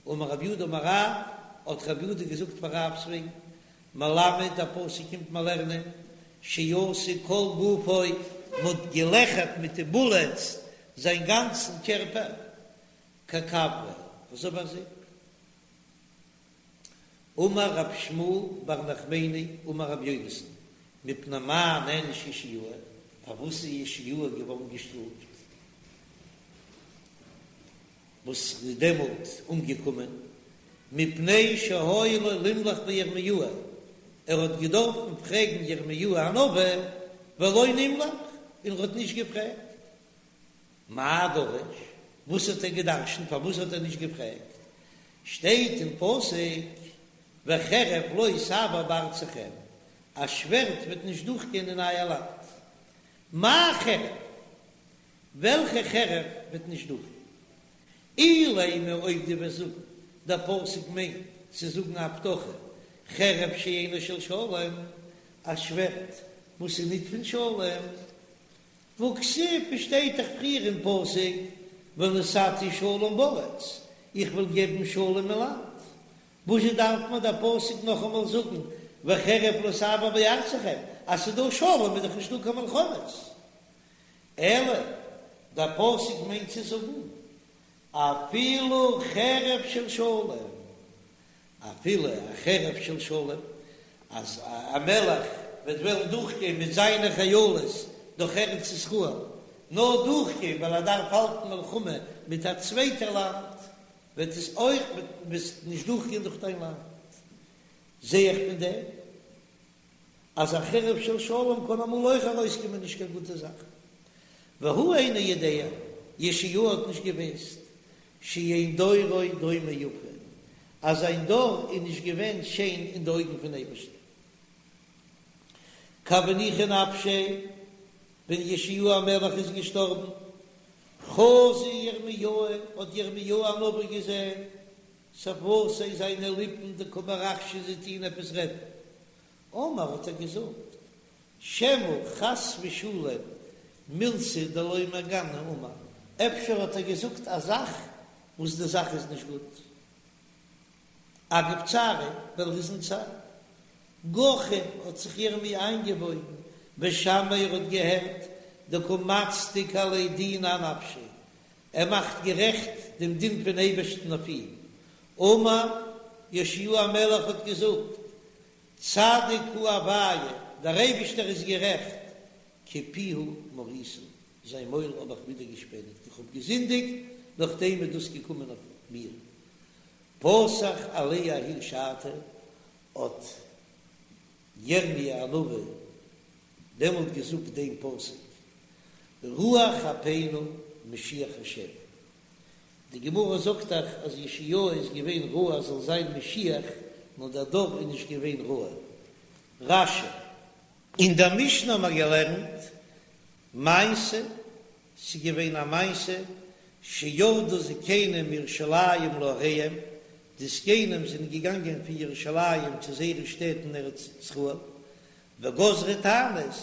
אמר רב יהודה אמר רב, האט רב יהודה געזאגט פאר רב'ס וועגן, מלמד דער פסוק קומט מיר לערנען, שעשו כל גופו, מ'האט געלעכערט מיט די בולעטס זיין גאנצן קערפער, ככברה, אזוי ווי א זיפ. אמר רב שמואל בר נחמני אמר רבי יונתן, מפני מה נענש יאשיהו, פארוואס איז יאשיהו געווארן געשטראפט? וואס איז דעמאלט אומגעקומען, מפני שהיה לו לימלך בירמיהו, ער האט געדארפן פרעגן ירמיהו הנביא, ולא נמלך, און ער האט נישט געפרעגט. מאי דרש, וואס האט ער געדרשנט, פארוואס האט ער נישט געפרעגט? שטייט אין פסוק, וחרב לא תעבור בארצכם, א שווערד וועט נישט דורכגיין אין אייער לאנד. מאי חרב? וועלכע חרב וועט נישט דורכגיין? אילימא אויב דו וועסט זאגן, דער פסוק מיינט צו זאגן א הבטחה, חרב שאינה של שלום, א שווערד וואס איז ניט פון שלום, והכתיב שטייט דאך פריער אין פסוק ונתתי שלום בארץ, איך וועל געבן שלום אין לאנד, וואזשע דארף מיר דער פסוק נאכאמאל זאגן וחרב לא תעבור בארצכם, אז ס'איז דא שלום איז דאך נישטא קיין מלחמות, אלא דער פסוק מיינט צו זאגן אפילו חרב של שלום, אפילו א חרב של שלום, אז א מלך וועט וועלן דורכגיין מיט זיינע חיילות דורך ארץ ישראל, נאר דורכגיין ווייל ער דארף האלטן מלחמה מיט א צווייטע לאנד, וועט עס אויך נישט דורכגיין דורך דיין לאנד. זע איך פון דעם אז א חרב של שלום קען אמאל אויך ארויסקומען נישט קיין גוטע זאך. והוא אינו יודע, יאשיהו האט נישט געוואוסט, שאין דורו דומה יפה, אז זיין דור איז נישט געווען שיין אין די אויגן פון אייבערשטן. כי הוה ניחא נפשיה, ווען יאשיהו המלך איז געשטארבן, חזא ירמיהו, האט ירמיהו הנביא געזען שפוותיה זיינע ליפן דקא מרחשא זיי טוהן עפעס רעדן. אמר האט ער געזאגט, שמא חס ושלום מילתא דלא מהגנא אמר, אפשר האט ער געזאגט א זאך וואס די זאך איז נישט גוט. אגב צעריה, ווייל ער איז אין צער. גחין האט זיך ירמי' איינגעבויגן, ושמעיה ער האט געהערט, דקא מצדיק עליה דינא אנפשיה, ער מאכט גערעכט דעם דין פון אייבערשטן אויף אים. אמר, יאשיהו המלך האט געזאגט, צדיק הוא הוויה, דער אייבערשטער איז גערעכט, כי פיהו מריתי, זיין מויל האב איך ווידערגעשפעניגט, איך האב געזינדיגט, נאכדעם איז דאס געקומען אויף מיר. פתח עליה ההיא שעתא, האט ירמי' הנביא דעמאלט געזאגט דעם פסוק, רוח אפינו משיח השם. די גמרא זאגט דאך אז יאשיהו איז געווען ראוי אז זאל זיין משיח, נאר דער דור איז נישט געווען ראוי. רש"י. אין דער משנה האבן מיר געלערנט מעשה, ס'איז געווען א מעשה, שירדו זקנים מירושלים לעריהם, די זקנים זענען געגאנגען פון ירושלים צו זייערע שטעט אין ארץ ישראל, וגזרו תענית,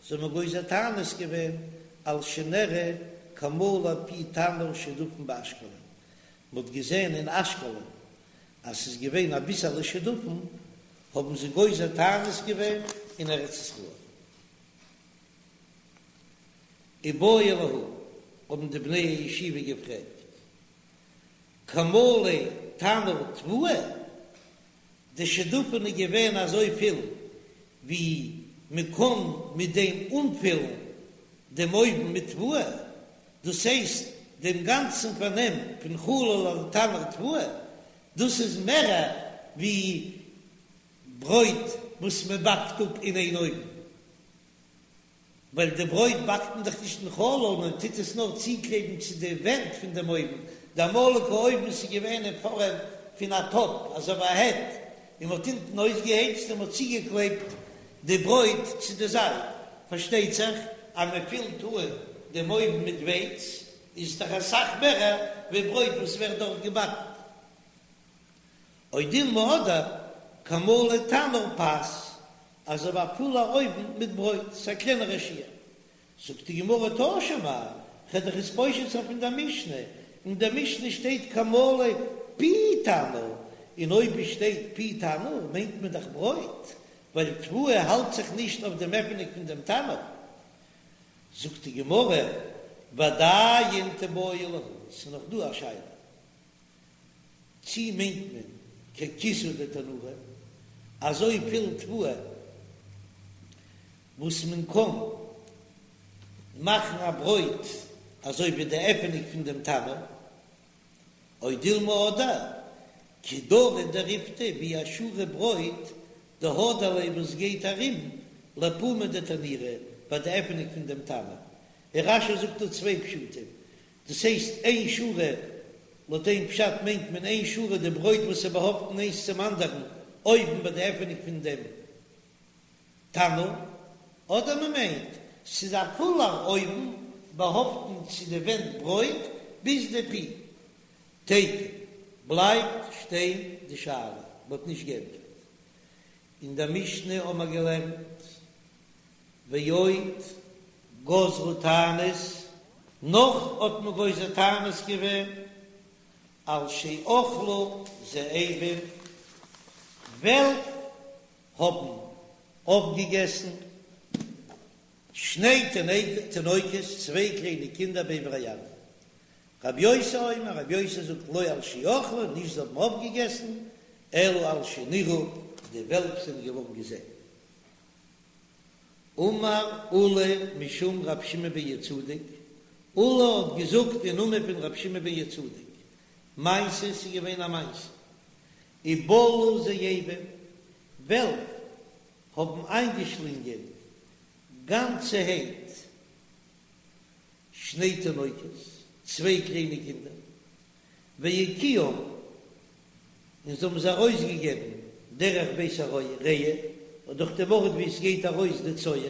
זיי האבן גוזר תענית געווען, על שנראה כמלא פי תנור שדפון באשקלון, מ'האט געזען אין אשקלון אז ס'איז געווען אביסעלע שדפון, האבן זיי גוזר תענית געווען אין ארץ ישראל. איבעיא להו, האבן די בני הישיבה געפרעגט, כמלא תנור תבואה, די שדפון איז געווען אזוי פיל ווי מען קען מיט דעם אנפילן דעם אויוון מיט תבואה, דאס הייסט דעם גאנצן פארנעם פון חלל התנור תבואה, דאס איז מער ווי ברויט וואס מען באקט אפ אין איין אויוון. ווייל די ברויט באקט מען דאך נישט אין חלל, מען טוט עס נאר צוקלעבן צו די ווענט פון דעם אויוון, די אמאליגע אויוון איז געווען אין פארעם פון א טאפ, אזוי ווי א העט, און מען האט אונטן אויסגעהייצט און מען האט צוגעקלעבט די ברויט צו די זייט, פארשטייט זיך אז מען פילט אן דעם אויוון מיט ווייץ, איז עס דאך אסאך מער ווי ברויט וואס ווערט דארט געבאקן. או דילמא אדער כמלא תנור פת, אזוי ווי א פולער אויוון מיט ברויט, ס'איז א קלענערע שיעור. זאגט די גמרא תא שמע, כ'וועל דיך עס פושט זיין פון דער משנה, אין דער משנה שטייט כמלא פי תנור, און אויב עס שטייט פי תנור מיינט מען דאך ברויט, ווייל תבואה האלט זיך נישט אויף דעם עפענונג פון דעם תנור. זאגט די גמרא, ועדיין תיבעי להו, ס'איז נאך דא א שאלה. צי מיינט מען ככיסוי דתנורא, אזוי פיל תבואה וואס מען קען מאכן א ברויט אזוי ווי די עפענונג פון דעם תנור, או דילמא אדער כדרא דריפתא ווי א שורה ברויט דהדר ליה וואס גייט ארום לפומא דתנורא ביי די עפענונג פון דעם תנור, און רש"י זאגט דא צוויי פשטים, דאס הייסט איין שורה, לויט איין פשט מיינט מען איין שורה די ברויט וואס איז באהאפטן איינס צום אנדערן אויבן ביי די עפענונג פון דעם תנור, אדער מען מיינט ס'איז א פולער אויוון באהאפטן צו די ווענט ברויט ביז די פי. תיקו, בלייבט שטיין די שאלה, מ'האט נישט געענטפערט. אין דער משנה האבן מיר געלערנט ועוד גזרו תענית, נאך האט מען גוזר תענית געווען על שאכלו זאבים, וועלף האבן אויפגעגעסן שני תינוקות, צוויי קליינע קינדער בעבר הירדן. רבי יוסי אומר, רבי יוסי זאגט לא על שאכלו, נישט זיי האבן אויפגעגעסן, אלא על שנראו, די וועלף זענען געווארן געזען. אמר עולא משום רבי שמעון בן יהוצדק, עולא האט געזאגט אין נאמען פון רבי שמעון בן יהוצדק, מעשה ס'איז געווען א מעשה, ובלעו זאבים, וועלף האבן איינגעשלינגען גאנצערהייט שני תינוקות, צוויי קליינע קינדער, והקיאום, און זיי האבן זיי ארויסגעגעבן דרך בית הרעי, דורך דעם ארט וואו עס גייט ארויס די צואה.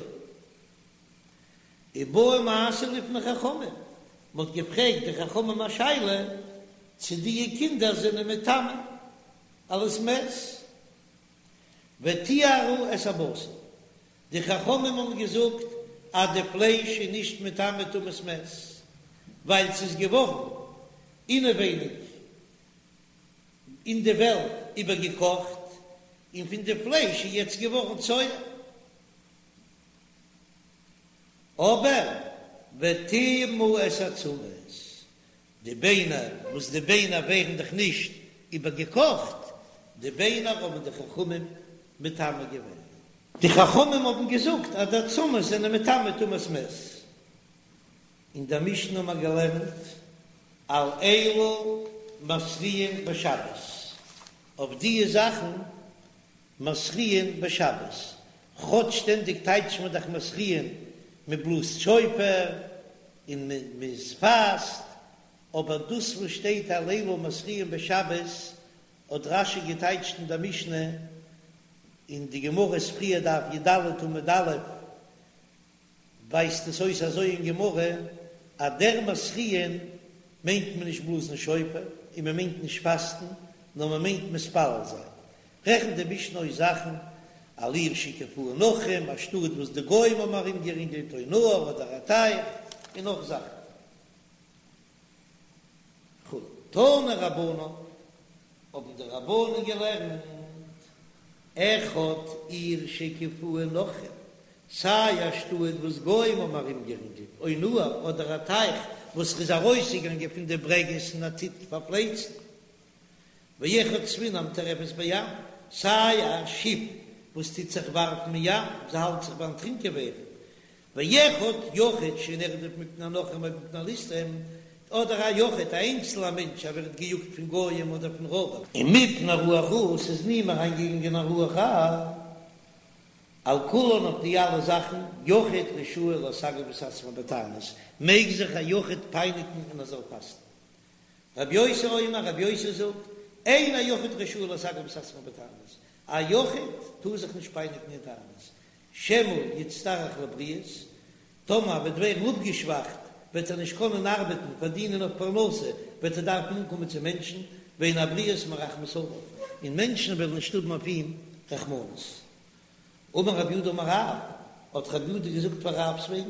ובאו מעשה לפני חכמים, מען האט געפרעגט די חכמים א שאלה צו די קינדער זענען מטמא אלס מת, וטיהרו את הבשר, די חכמים האבן געזאגט אז די פלייש איז נישט מטמא טומאת מת, ווייל ס'איז געווארן אינעווייניג. אין די וועלט איבערגעקאכט, און פון די פלייש איז יעצט געווארן צואה. אבער וטמאו את העצמות, די ביינער, וואס די ביינער ווערן דאך נישט איבערגעקאכט, די ביינער האבן די חכמים מטמא געווען. די חכמים האבן געזאגט אז די עצמות זענען מטמא טומאת מת. אין דער משנה האבן מיר געלערנט על אלו מתריעין בשבת, אויף דיע זאכן מתריעין בשבת, כאטש שטענדיג טייטשט מען דאך מתריעין מען בלאזט שופר און מען פאסט, אבער דאס וואס שטייט על אלו מתריעין בשבת האט רש"י געטייטשט אין דער משנה, אין די גמרא איז פריער דף י"ד עמוד א', ווייזט עס אויס אזוי אין גמרא אז דער מתריעין מיינט מען נישט בלאזן שופר און מען מיינט נישט פאסטן נאר מען מיינט מתפלל זיין. רעכנט די משנה אויס זאכן על עיר שהקיפוה נכרים, א שטאט וואס די גוים האבן ארומגערינגלט, או נהר אדער א טייך, און נאך זאכן. כו'. תנו רבנן, האבן די רבנן געלערנט, אחד עיר שהקיפוה נכרים, סיי א שטאט וואס גוים האבן ארומגערינגלט, או נהר, אדער א טייך וואס איז ארויסגעגאנגען פון די ברעגעס און ער טוט פארפלייצן, ואחד ספינה המטורפת בים, סיי א שיף וואס טוט זיך ווארפן אין ים, זי האלט זיך ביים דערטרינקען ווערן, ואחד יחיד שנרדף מפני הנכרים או מפני הליסטים, אדער א יחיד, א איינצלער מענטש, ער ווערט געיאגט פון גוים אדער פון רויבער. און מפני רוח רעה, ס'איז אין אים אריינגעגאנגען א רוח רעה, על כולן אויף די אלע זאכן, יחיד רשאי לסגף את עצמו בתענית, מעג זיך א יחיד פייניגן און ער זאל פאסטן. רבי יוסי אומר, רבי יוסי זאגט, אין היחיד רשאי לסגף את עצמו בתענית, א יחיד טאר זיך נישט פייניגן אין תענית, שמא יצטרך לבריות, טאמער ער וועט ווערן אפגעשוואכט וועט ער נישט קענען ארבעטן, פארדינען אויף פרנסה, וועט ער דארפן אנקומען צו מענטשן, ואין הבריות מרחמות עליו, און מענטשן וועלן נישט האבן אויף אים רחמנות. אמר רב יהודה אמר רב, האט רב יהודה געזאגט פאר רב'ס וועגן,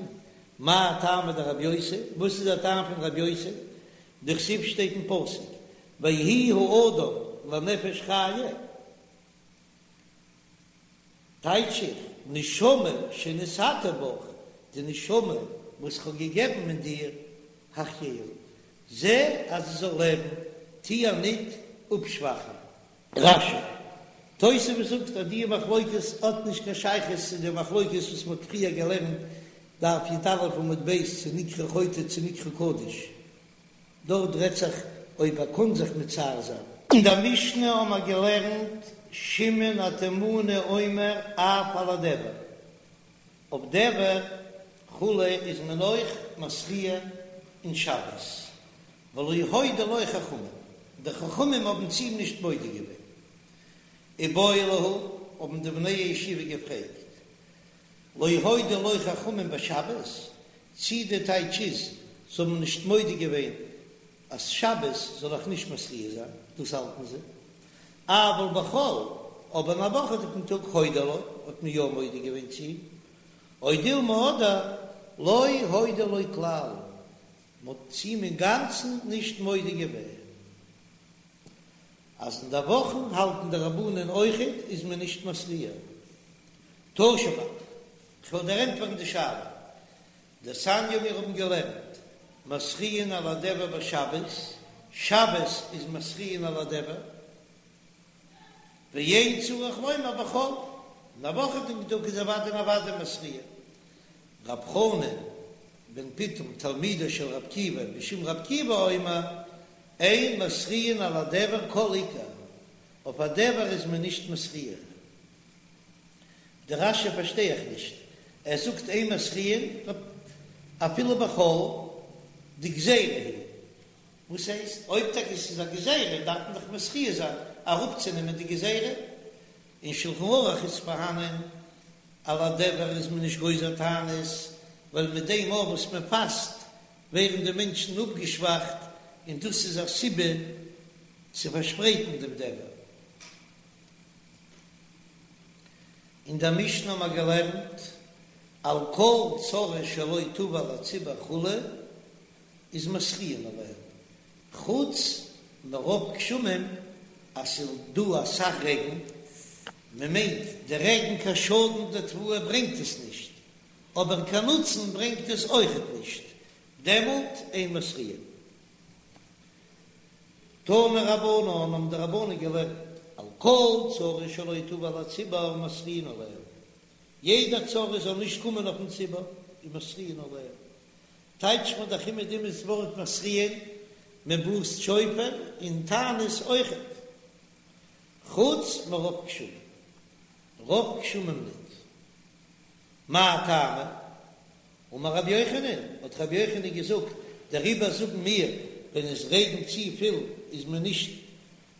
מאי טעמא דרבי יוסי, וואס איז דער טעם פון רבי יוסי, דכתיב שטייט אין פסוק, ויהי האדם לנפש חיה, טייטש איך, נשמה שנתתי בך, די נשמה וואס כ'האב געגעבן אין דיר, החייאה, זע אז זי זאל לעבן, טו איר ניט אפשוואכן. רש"י. תוספות זאגט אז די מחלוקת האט נישט קיין שייכות צו די מחלוקת וואס מ'האט פריער געלערנט דף י"א עמוד ב' צו נקרא חוטא צו נקרא קדוש, דארט רעדט זיך אויב ער קען זיך מצער זיין. אין דער משנה האבן מיר געלערנט שמעון התימני אומר אף על הדבר, אויף דבר כו' איז מען אויך מתריע אין שבת, ולא הודו לו חכמים, די חכמים האבן צו אים נישט מודה געווען. איבעיא להו, האבן די בני הישיבה געפרעגט, לא הודו לו חכמים בשבת, צי די טייטש איז, זיי האבן נישט מודה געווען אז שבת זאל איך נישט מתריע זיין, דאס האלטן זיי, אבל בחול, אבער אין א וואכעדיגן טאג הודו לו, האט מען יא מודה געווען צו אים, או דילמא אדער לא הודו לו כלל, מען האט צו אים אינגאנצן נישט מודה געווען אז אין די וואכן האלטן די רבנן אויכעט איז מען נישט מתריע. תא שמע, כ'וועל דיר ענטפערן די שאלה. דתניא מיר האבן געלערנט מתריעין על הדבר בשבת, שבת איז מתריעין על הדבר, ואין צריך לומר בחול, אין א וואכעדיגן טאג איז אוודאי און אוודאי מתריעין. רב חנן בן פיטום תלמידו של רב עקיבא בשם רב עקיבא אומר אין מתריעין על הדבר כל עיקר, אויף א דבר איז מען נישט מתריע. די רש"י פארשטיי איך נישט, ער זאגט אין מתריעין אפילו בחול דגזירה היא, וואס הייסט אויב טאקע עס איז א גזירה דארף מען דאך מתריע זיין אראפצונעמען די גזירה, אין שלחן ערוך איז פארהאנען על הדבר איז מען נישט גוזר תענית, ווייל מיט דעם אויך וואס מען פאסט ווערן די מענטשן אפגעשוואכט און דאס איז א סיבה צו פארשפרייטן דעם דבר. אין דער משנה האבן מיר געלערנט על כל צרה שלא תבא על הציבור כו' איז מתריעין עליה, חוץ מרוב גשמים. אז ס'איז דא אסאך רעגן, מען מיינט די רעגן קיין שאדן די תבואה ברענגט עס נישט, אבער קיין נוצן ברענגט עס אויכעט נישט, דעמאלט אין מתריעין. תנו רבנן האבן די רבנן געלערנט, על כל צרה שלא תבוא על הציבור מתריעין עליה, יעדע צרה זאל נישט קומען אויפן ציבור, איז מתריעין עליה, טייטשט מען דאך אומעדום דאס ווארט מתריעין, מען בלאזט שופר אין תענית אויכעט, חוץ מרוב גשמים, רוב גשמים ניט. מאי טעמא? אמר רבי יוחנן, האט רבי יוחנן געזאגט, דעריבער זאגן מיר, ווען עס רעגנט צופיל איז מען נישט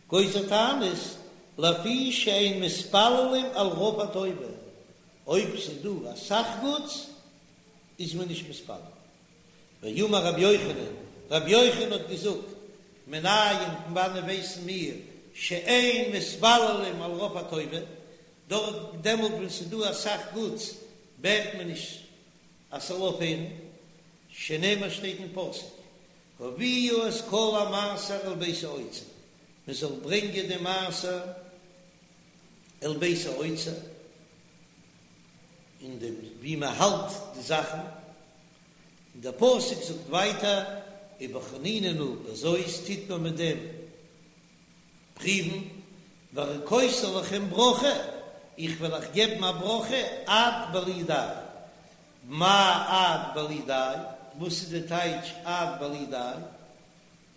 גוזר תענית, לפי שאין מתפללים על רוב הטובה, אויב ס'איז דא אסאך גוטס איז מען נישט מתפלל. ואמר רבי יוחנן, רבי יוחנן האט געזאגט, מנין פון וואנען ווייסן מיר שאין מתפללים על רוב הטובה, דארט דעמאלט ווען ס'איז דא אסאך גוטס בעט מען נישט אז ס'זאל אויפהערן, שנאמר שטייט אין פסוק, הביאו את כל המעשר אל בית האוצר, מען זאל ברענגען די מעשר אל בית האוצר, אין דעם ווי מען האלט די זאכן, און דער פסוק זאגט ווייטער, ובחנוני נא בזאת טוט מען מיט דעם פריוון, והריקותי לכם ברכה, איך וועל אייך געבן א ברכה עד בלי די. מאי עד בלי די? וואס איז די טייטש עד בלי די?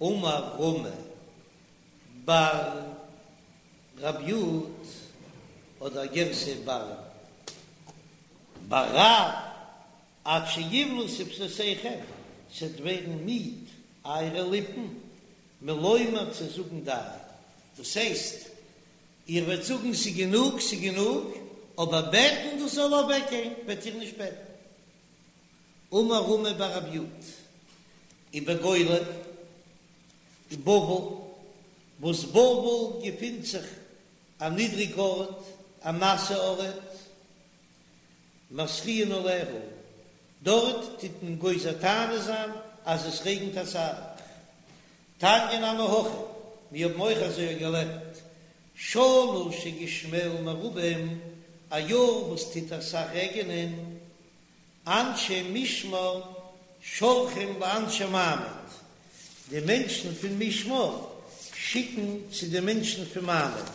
אמר רמי בר רב יוד, אדער גירסא בר בר רב, עד שיבלו שפתותיכם, ס'וועט ווערן מיד אייערע ליפן, מלומר צו זאגן די, דאס הייסט, איר וועט זאגן ס'איז גענוג, ס'איז גענוג, אבער בעטן דאס זאל אוועקגיין וועט איר נישט בעטן. אמר רמי בר רב יוד, ובגולה, אין בבל, וואס בבל געפינט זיך א נידריג ארט, א נאסע ארט, מתריעין עליה, דארט טוט מען גוזר תענית זיין אז עס רעגנט אסאך. תניא נמי הכי, מיר האבן אויך אזוי געלערנט, שנה שגשמיה מרובים, א יאר וואס טוט אסאך רעגענען, אנשי משמר שולחים לאנשי מעמד, די מענטשן פון משמר שיקן צו די מענטשן פון מעמד.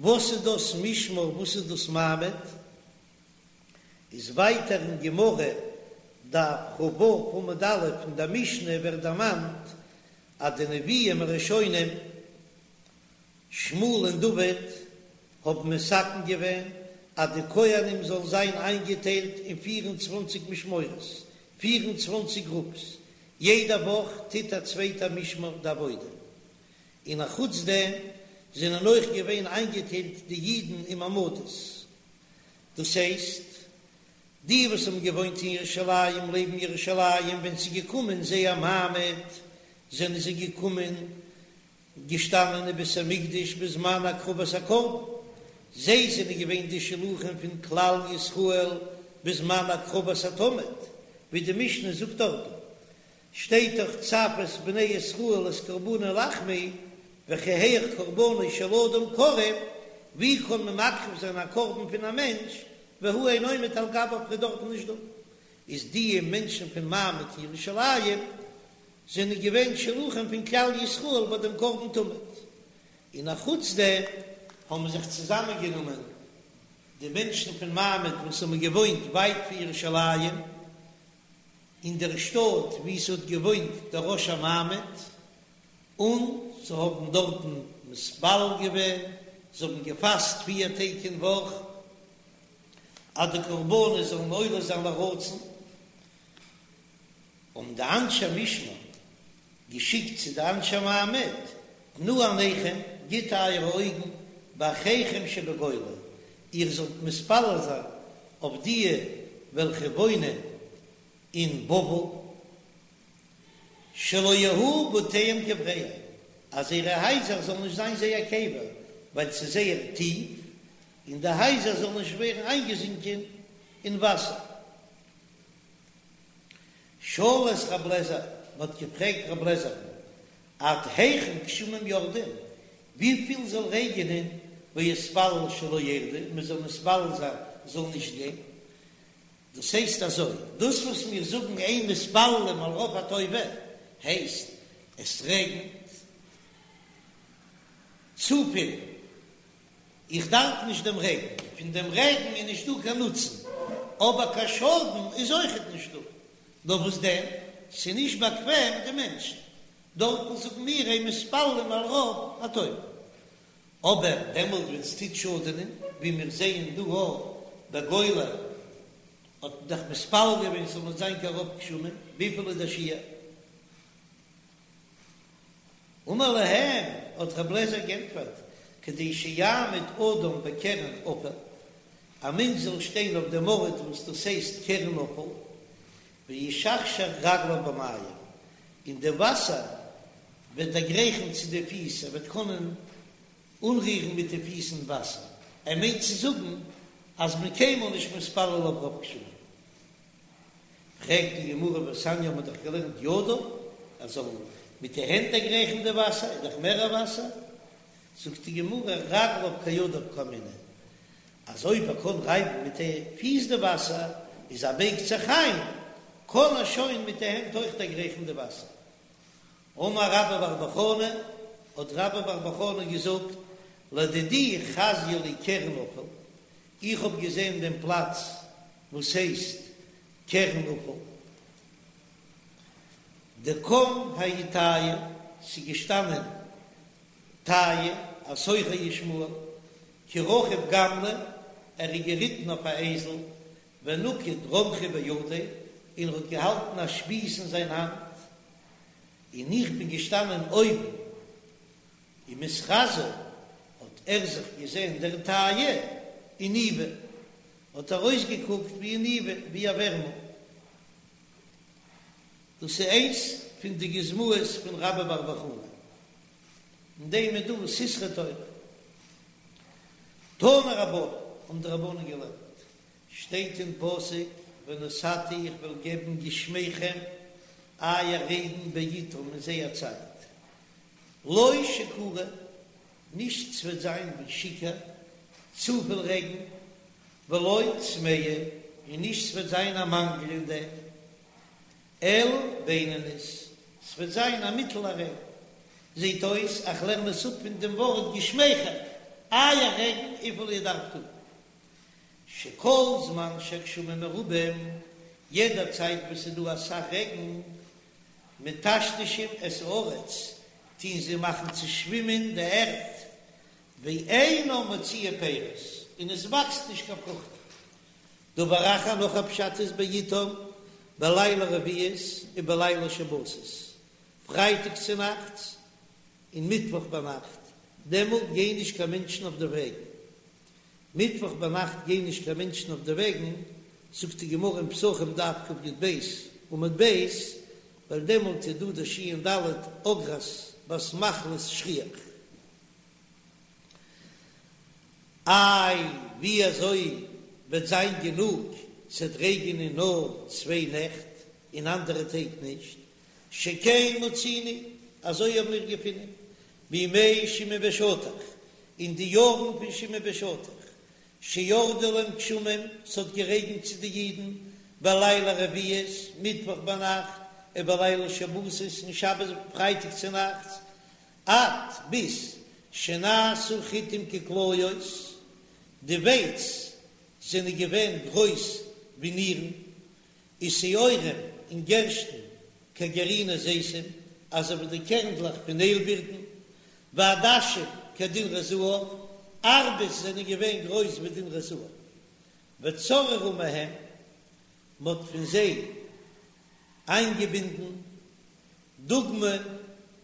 וואס איז דאס משמר וואס איז דאס מעמד? איז ווייטער אין גמרא דף כ"ו עמוד א' אין דער משנה ווערט דערמאנט אז די נביאים הראשונים שמואל און דוד האבן מתקן געווען אז די כהנים זאלן זיין איינגעטיילט אין פיר און צוואנציג משמרות, פיר און צוואנציג גרופס, יעדע וואך טוט א צווייטע משמר די עבודה, און אחוץ דעם זענען אויך געווען איינגעטיילט די אידן אין מעמדות, דאס הייסט, די וואס האבן געוואוינט אין ירושלים לעבן ירושלים ווען ס'איז געקומען זייער מעמד זענען זיי געקומען געשטאנען אין בית המקדש בזמן הקרבת הקרבן, זיי זענען געווען די שלוחים פון כלל ישראל בזמן הקרבת התמיד, ווי די משנה זאגט דארטן, שטייט דאך צו את בני ישראל את קרבני לחמי וכי היאך קרבנו של אדם קרב, ווי קען מען מקריב זיין א קרבן פון א מענטש והוא אינו עומד על גביו ער איז דארטן נישט דא, איז די מענטשן פון מעמד ירושלים זענען געווען שלוחים פון כלל ישראל ביי דעם קרבן תמיד, און א חוץ דעם האבן זיך צוזאמען גענומען די מענטשן פון מעמד וואס האבן געוואוינט ווייט פון ירושלים, אין דער שטאט וואו ס'האט געוואוינט דער ראש המעמד, און זיי האבן דארטן מתפלל געווען, זיי האבן געפאסט פיר טעג אין וואך, אז די קרבנות זאלן עולה זיין לרצון, האבן די אנשי משמר געשיקט צו די אנשי מעמד, תנו עיניכם, גיט אייערע אויגן, באחיכם שבגולה, איר זאלט מתפלל זיין אויף דיע וועלכע וואוינען אין בבל, שלא יהיו בתיהם קבריהם, אז זייערע הייזער זאלן נישט זיין זייער קבר, ווייל ס'איז זייער טיף, און די הייזער זאלן נישט ווערן איינגעזינקען אין וואסער. שאלו את רב לעזער, מען האט געפרעגט רב לעזער'ן, עד היכן גשמים יורדים, וויפיל זאל רעגענען ויתפלל שלא ירדו, מען זאל מתפלל זיין זאל נישט גיין, דאס הייסט אזוי, דאס וואס מיר זאגן אין מתפללים על רוב הטובה, הייסט עס רעגנט צופיל, איך דארף נישט דעם רעגן, פון דעם רעגן איז נישטא קיין נוצן, אבער קיין שאדן איז אויכעט נישטא, נאר וואס דען, ס'איז נישט באקוועם די מענטשן, דארטן זאגן מיר אין מתפללים על רוב הטובה, אבער דעמאלט ווען ס'טוט שאדענען, ווי מיר זעען דא אויך בגולה, האט מען דאך מתפלל געווען ס'זאל נישט זיין קיין רוב גשמים, וויפיל איז דער שיעור? אמר להם, האט רב לעזער גענטפערט, כדי שיעמוד אדם בקרן אפל, א מענטש זאל שטיין אויף דעם ארט וואס דאס הייסט קרן אפל, וישכשך רגליו במים, און די וואסער וועט דערגרייכן צו די פיס, ער וועט קענען אנרירן מיט די פיס אין וואסער, ער מיינט צו זאגן אז מען קיינמאל נישט מתפלל אויף רוב גשמים. פרעגט די גמרא והתניא האט מען דאך געלערנט ידיו, ער זאל מיט די הענט דערגרייכן די וואסער, איז דאך מער וואסער, זאגט די גמרא רגליו כידיו קאמינא, אז אויב ער קען רייבן מיט די פיס די וואסער, איז ער בייגט זיך איין, קען ער שוין מיט די הענט אויך דערגרייכן די וואסער. אמר רבה בר בר חנה, האט רבה בר בר חנה געזאגט, לדידי חזיא לי קרן אפל, איך האב געזען דעם פלאץ וואס הייסט קרן אפל, דקם ההוא טייעא, ס'איז געשטאנען טייעא, א סוחר ישמעאל, כי רכיב גמלא, ער איז געריטן אויף א אייזל, ונקיט רומחא בידיה, און ער האט געהאלטן א שפיז אין זיין האנט, און איך בין געשטאנען אויבן, ומתחזי האט ער זיך געזען דער טייעא איניבא, האט ער אויסגעקוקט ווי איניבא, ווי א ווערמל. דאס איז איינס פון די גוזמאות פון רבה בר בר חנה, אין דעם איז דא סתרי תורה. תנו רבנן, האבן די רבנן געלערנט, שטייט אין פסוק ונתתי איך וועל געבן גשמיכם אייער רעגן בעתם אין זייער צייט, לא שכורה, נישט ס'וועט זיין ווי שיכור, צופיל רעגן, ולא צמאה, און נישט ס'וועט זיין א מאנגל אין דעם, אלא בינונית, ס'וועט זיין א מיטעלע רעגן. זעט אויס איך לערן עס אפ פון דעם ווארט גשמיכם, אייער רעגן וויפיל איר דארפט האבן. שכל זמן שהגשמים מרובים, יעדע צייט וואס ס'איז דא אסאך רעגן, מטשטשים את הארץ, טוהן זיי מאכן צושווימען די ערד, ואינה מוציאה פירות, און עס וואקסט נישט קיין פרוכטן. דבר אחר נאך א פשט איז בעתם בלילי רביעיות ובלילי שבתות, פרייטאג צונאכטס און מיטוואך ביינאכט, דעמאלט גייען נישט קיין מענטשן אויף די וועגן. מיטוואך ביינאכט גייען נישט קיין מענטשן אויף די וועגן, זאגט די גמרא אין פסחים דף קי"ב עמוד ב', ווייל דעמאלט איז דא די ש"ד אגרת בת מחלת שכיח. איי ווי אזוי וועט זיין גענוג ס'עט רעגענען נאר צוויי נעכט און אנדערע טעג נישט? שכן מצינו, אזוי האבן מיר געפונען בימי שמעון בן שטח, אין די יארן פון שמעון בן שטח, שירדו להם גשמים, ס'האט גערעגנט צו די אידן, בלילי רביעיות, מיטוואך ביינאכט, ובלילי שבתות, און שבת פרייטאג צונאכטס, עד ביז שנעשו חיטים ככליות, די ווייץ זענען געווען גרויס ווי נירן, ושעורים און גערשטן כגרעיני זיתים, אזוי ווי די קערנדלעך פון איילבירטן, ועדשים כדינרי זהב, ארבעס זענען געווען גרויס ווי דינרי זהב, וצררו מהם, מ'האט פון זיי איינגעבינדן דוגמא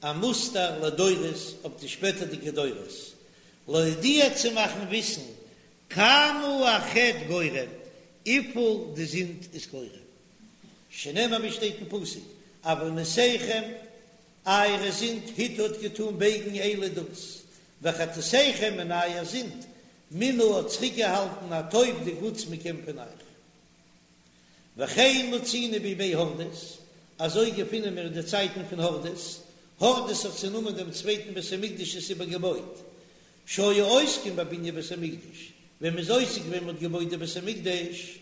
א מוסטער לדורות אויף די שפעטערדיגע דורות, להודיע צו מאכן וויסן כמה החטא גורם, וויפיל די זינד איז גורם. שנאמר ווי שטייט אין פסוק, עונותיכם, אייערע זינד הטו האט געטאן בייגן אלה דאס, וחטאתיכם און אייער זינד מנעו האט צוריקגעהאלטן הטוב די גוטס מכם פון אייך. וכן מצינו בימי הורדוס, אזוי געפינען מיר אין די צייטן פון הורדוס, הורדוס האט צענומען דעם צווייטן בית המקדש עס איבערגעבויט, שהיו עוסקים בבנין בית המקדש, ווען מ'איז עוסק געווען מ'האט געבויט די בית המקדש,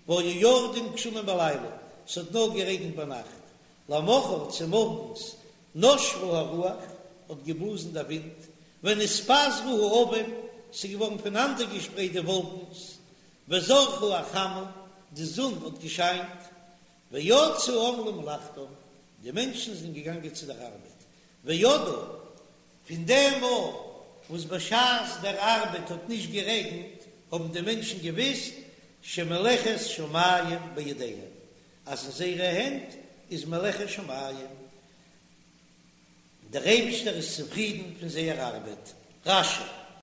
והיו יורדים גשמים בלילה, ס'האט נאר גערעגנט ביינאכט, למחר צומארגנס נשבה הרוח, האט געבלאזן דער ווינט, ונתפזרו העבים, ס'איז געווארן פונאנדערגעשפרייט די וואלקנס, וזרחה החמה, די זון האט געשיינט, ויצאו העם למלאכתם, די מענטשן זענען געגאנגען צו דער ארבעט, וידעו, פון דעם מאל וואס בשעת דער ארבעט האט נישט גערעגנט, האבן די מענטשן געוואוסט שמלאכת שמים בידיהם, אז אין זייערע הענט איז מלאכת שמים, דער אייבישטער איז צופרידן פון זייער ארבעט. רש"י.